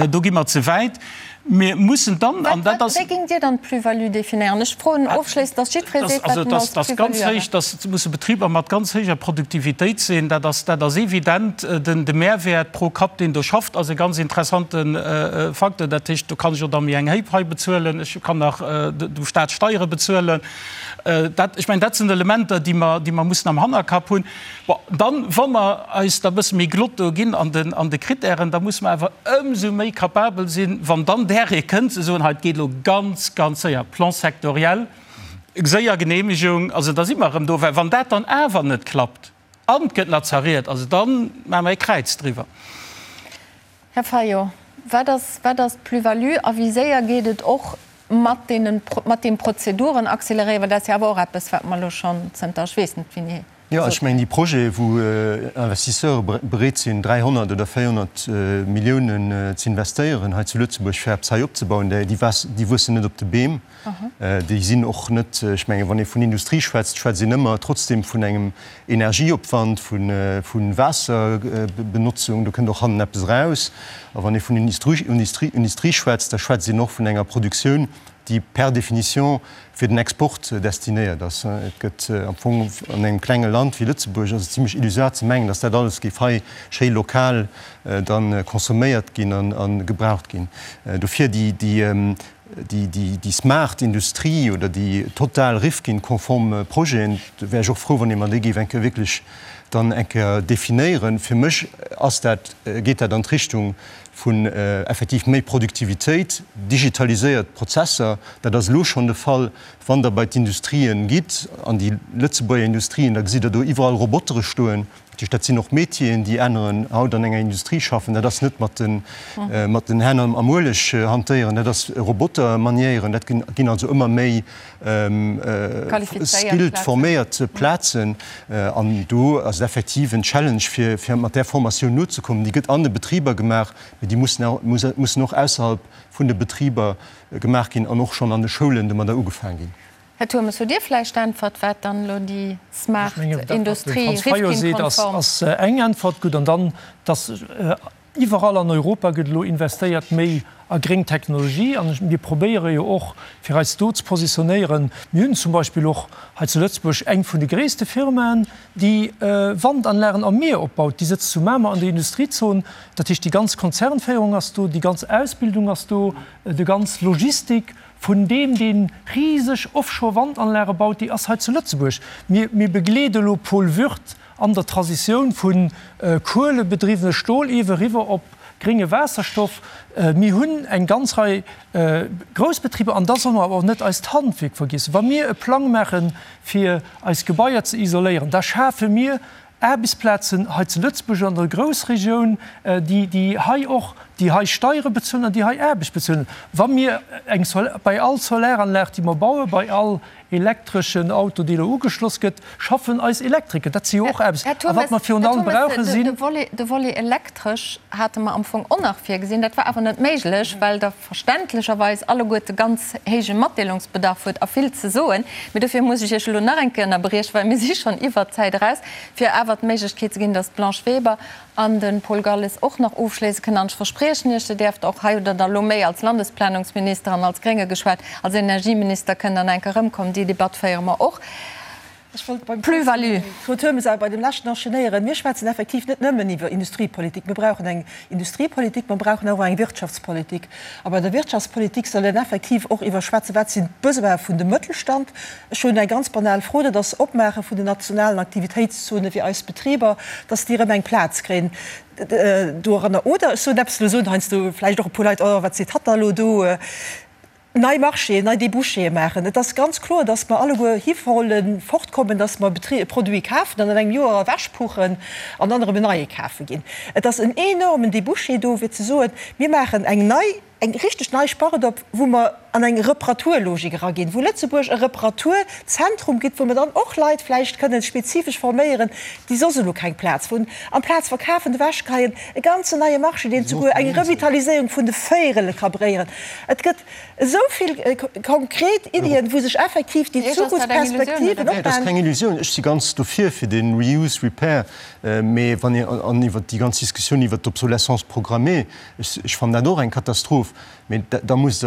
Do gi mer ze wäit. Mir mussen dann, an dat ass. Wéi géingt Dir dann d'Plus-value definéieren? Ech froen ofschléissend, dass jiddweree seet, wat en als Plus-value erhält. Dat musse Betriber mat ganz héijer Produktivitéit sinn. Dat ass, dat ass evident. Den, de Mehrwäert pro Kapp, deen do schafft, ass e ganz interessante Facteur. Dat heescht, do kann ech och da méi eng héich Pai bezuelen, ech kann nach dem Staat Steiere bezuelen. Dat, ech mengen, dat sinn Elementer, déi mer, déi mer mussen am Hannerkapp hunn. Bon, dann, wa mer eis da e bësse méi glott do ginn an den, an de Kritären, da musse mer awer ëmsou méi capabel sinn, wann dann där ee kënnt, ze soen, hei, et geet elo ganz, ganz séier, Plan sectoriel, séier Genehmegung, also da si mer erëm do. Well wann dat dann awer net klappt an et gëtt nach zerriet, also da maache mer ee Kräiz driwwer. Här Fayot, wat ass, wat ass d'Plus-value a wéi séier geet et och mat deenen, mat deem Prozeduren accéléréieren, well dat ass jo awer och eppes, wat mer elo schonn zënter ech weess net wéini Jo, ech mengen déi Projete wou Investisseure bereet sinn 300 oder 400 Milliounen ze investéieren hei zu Lëtzebuerg fir eppes hei opzebauen, déi wuessen net op de Beem. Déi sinn och net, ech mengen wann ee vun Industrie schwätzt, schwätzt een ëmmer trotzdem vun engem Energieopwand, vu Waasserbenotzung, do kënnt och hannen eppes eraus. A wann ee vun Industrie schwätzt, da schwätzt een och vun enger Produktioun, déi per définition fir den Export destinéiert ass. Et gëtt am Fong an engem klenge Land wéi Lëtzebuerg ass et zimlech illusoire ze mengen, datt dat alles géif hei schéi lokal da consomméiert ginn a gebraucht ginn. Dofir déi smart Industrie oder déi total Rifkin-konform Projeten, do wär ech och frou, wann ee mer déi géif eng Kéier wierklech dann eng Kéier definéieren. Fir mech ass dat, geet dat an d'Richtung vun effektiv méi Produktivitéit, digitaliséiert Prozesser, dat ass elo schonn de Fall, wann Der bei d'Industrien gitt, an déi Lëtzebuerger Industrien, da gesitt Der do iwwerall Robotere stoen. Dat heescht, dat sinn och Métieren, déi aneren haut an enger Industrie schaffen. Dat ass net mat den, mat den Hänn am Ueleg hantéieren, dat ass Roboter maniéieren. Dat ginn also ëmmer méi skilled, forméiert Plazen. An do ass et effektiv en Challenge, fir, fir mat där Formatioun nozekommen. Déi gëtt an de Betriber gemaach, mee déi mussen, mussen och ausserhalb vun de Betriber gemaach ginn an och schonn an de Schoulen domadder ugefaang ginn. Här Turmes, hutt Dir vläicht d'Äntwert, wat dann elo déi smart Industrie Rifkin-konform. Ass eng Äntwert gutt. An dann, dass. Iwwerall an Europa gëtt elo investéiert méi a gréng Technologie an mir probéiere jo och fir eis do ze positionéieren. Mir hunn zum Beispill och hei zu Lëtzebuerg eng vun de gréisste Firmaen, déi Wandanlagen am Mier opbaut. Déi sëtzt zu Mamer an der Industriezon. Dat heescht, déi ganz Konzernféierung ass do, déi ganz Ausbildung ass do, déi ganz Logistik vun deem, dee riseg Offshore-Wandanlage baut, déi ass hei zu Lëtzebuerg. Mir, mir begleede elo Paul Würth an der Transitioun vu kuelebedriwwene Stoliewe riwwer op grénge Waasserstoff. Mir hunn eng ganz Rei grouss Betriber an da solle mer awer och net eist Handwierk vergiessen. Wa mir e Plang maache fir eis Gebaier ze isoléieren, da schafe mir Aarbechtsplazen hei zu Lëtzebuerg an der Groussregioun, déi déi hei och, déi hei Steiere bezuelen an déi hei Aarbecht bezuelen. Wa mir eng bei all Solaranlag, déi mer bauen, bei all elektreschen Auto, dee elo ugeschloss gëtt, schaffen eis Elektriker. Dat si jo och Aarbechts. Här A wat Turmes, mer virun Här allem Turmes, brauche de, sinn. de Volet, de Volet elektresch hate mer am Fong och nach virgesinn. Dat war awer net méiglech, well Der verständlecherweis alleguerte ganz héije Matdeelungsbedarf hutt a vill ze soen. Mee dofir muss ech Iech elo nach eng Kéier ënnerbriechen, well mir si schonn iwwert d'Zäit eraus, fir awer d'Méiglechkeet ze ginn, dass d'Blanche Weber an de Paul Galles och nach ofschléisse kënnen. An ech verspriechen Iech, Dir däerft och hei, oder da lo méi als Landesplanungsminister an als Grénge geschwat, als Energieminister kënnt dann eng Kéier erëmkommen. Déi Debatt féiere mer och. Ech wollt beim Plus-value. Claude Turmes awer bei dem leschten enchaînéieren. Mir schwätzen effektiv net nëmmen iwwer Industriepolitik. Mir brauchen eng Industriepolitik, mer brauchen awer och eng Wirtschaftspolitik. A bei der Wirtschaftspolitik soll een effektiv och iwwer schwätzen, wat sinn d'Besoine vun dem Mëttelstand. Ech hunn eng ganz banal Fro, dat ass Opmaache vun den nationalen Aktivitéitszone fir eis Betriber, dass déi erëm eng Plaz kréien doranner. Oder ech soen eppes, elo soen heiansdo vläicht och e puer Leit, Oh, wat seet hatt da elo do? Nei Marchéen, nei Débouchéë maachen. Et ass ganz kloer, dass mer alleguer hiwolle fortkommen, dass mer e Produit kafen an an engem Joer ewechpuchen an dann erëm en neie kafe ginn. Et ass en enormen Débouché do, fir ze soen, mir maachen eng nei, eng richteg nei Spart op, wou mer an eng Reparaturlogik eraginn, wou Lëtzebuerg e Reparaturzentrum gëtt, wou mer dann och Leit vläicht kënnen spezifesch forméieren, déi soss elo keng Plaz hunn. Amplaz verkafen, ewechgeheien, e ganzen neie Marché, deen souguer eng Revitaliséierung vun de Véierele ka bréieren. Et gëtt esou vill konkret Iddien, wou sech effektiv déi Zukunftsperspektiven Dat ass opmachen. keng Illusioun. Ech si ganz dofir fir de Reuse, Repair, mee wann een, an iwwert déi ganz Diskussioun iwwert d'Obsolescence programmée, ech, ech fannen dat och eng Katastroph, mee da musst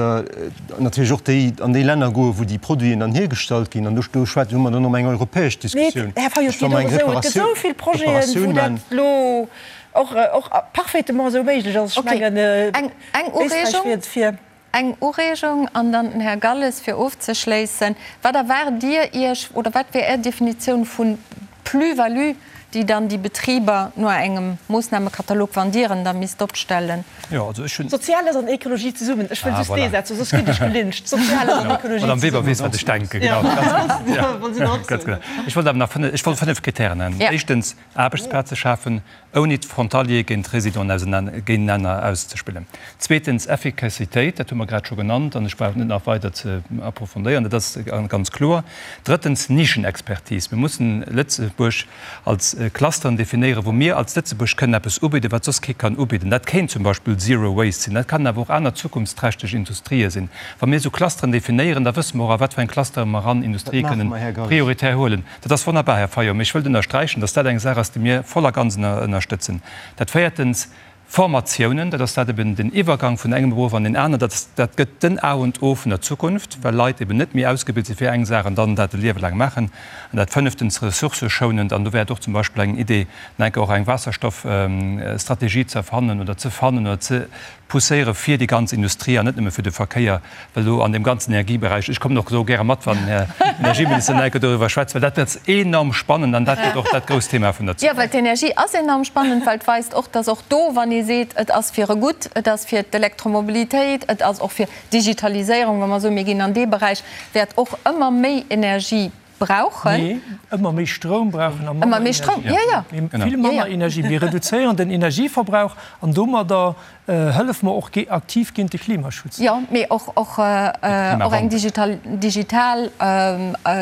Der natierlech och déi, an déi Länner goen, wou déi Produiten dann hiergestallt ginn. An do, do schwätze, hu mer dann ëm eng europäesch Mee, Diskussioun. Här Fayot, Ech, wa mer et eng geet och esou, et gëtt Reparatioun, esou vill Projeten, Reparatioun wou dat man. elo och, och parfaitement esou méiglech ass. Ech Okay, mengen, eng, eng Éisträich Ureegung. wier et fir. Eng Ureegung an dann den Här Galles fir ofzeschléissen. Wat erwaart Dir Iech oder wat wär Är Definitioun vu Plus-value, déi dann déi Betriber no engem Moossnamekatalog, wann Dir en da misst opstellen? Jo, also ech hunn. Soziales an Ekologie zesummen. Ech wëll Ah, just dee voilà. Saz soen, soss ginn ech gelyncht. Soziales an Ekologie D'Madame Weber zesummen. weess, wat ech denken, genau. Ganz genau. Ganz genau. Ech wollt awer nach fënnef, ech wollt fënnef Kritären nennen. Ja. Éischtens, Aarbechtsplaze schafen, ouni d'Frontaliere géint d'Résidenten géintenaner auszespillen. Zweetens, Effikassitéit, dat hu mer grad scho genannt an ech brauch et net nach weider ze approfondéieren, dat ass ganz kloer. Drëttens, Nischenexpertise. Mir mussen Lëtzebuerg als Clusteren definéieren, wou mir als Lëtzebuerg kënnen eppes ubidden, wat soss kee kann ubidden. Dat kéint zum Beispill Zero Waste sinn, dat kann awer och aner zukunftsträchteg Industrië sinn. Wa mir esou Clusteren definéieren, da wësse mer och, a wat fir eng Clustere mer eran Dat Industrië maache kënnen mer, Här Galles. prioritär huelen. Dat ass wonnerbar, Här Fayot, mee ech wëllt ënnersträichen, dass dat eng Saach ass, déi mir voll a ganz ënnerstëtzen. Dat véiertens, Formatiounen, dat ass dat eben den Iwwergang vun engem Beruff an deen aneren, dat ass, dat gëtt den A und O vun der Zukunft, well Leit eben net méi ausgebilt si fir eng Saach an dann dat e Liewe laang maachen. An dat fënneftens, ressourcëschounend, an do wär et och zum Beispill eng Idee, enke och eng Waasserstoffstrategie ze erfannen oder ze fannen oder ze pousséiere fir déi ganz Industrie an net nëmme fir de Verkéier, well do an deem ganzen Energieberäich, ech kommen och do gäre mat, wann den Här Energieminister nach eng Kéier doriwwer schwätzt, well dat ass enorm spannend an dat gëtt och dat grousst Thema vun der Jo, well Zukunft. d'Energie ass enorm spannend, well et weist och, dass och do, wann ee seet, et ass fir e Gutt, et ass fir d'Elektromobilitéit, et ass och fir d'Digitaliséierung, wa mer soen, mir ginn an dee Beräich, wäert och ëmmer méi Energie brauchen. Nee, ëmmer méi Stroum brauchen a manner Ëmmer méi Stroum, Energie. jo, jo. Mee vill manner Energie. Mir reduzéieren den Energieverbrauch an domadder hëllef mer och aktiv géint de Klimaschutz. Jo, mee och, och, och eng digital, digital,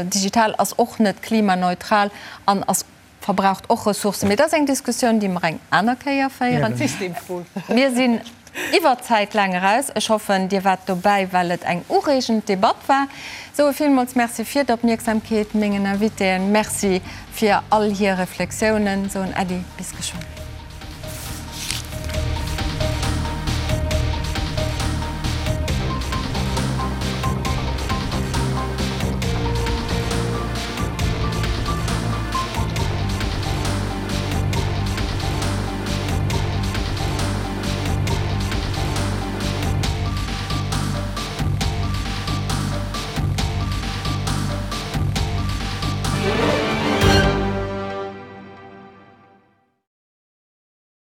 digital ass och net klimaneutral an ass verbraucht och Ressourcen. Mee dat ass eng Diskussioun, déi mer eng aner Kéier féieren. Mir sinn iwwer d'Zäit laang eraus. Ech hoffen, Dir waart dobäi, well et eng ureegend Debatt war. Soe villmools Merci fir d'Opmierksamkeet, mengen Invitéen Merci fir all hir Reflexiounen. Soen Äddi, bis geschwënn.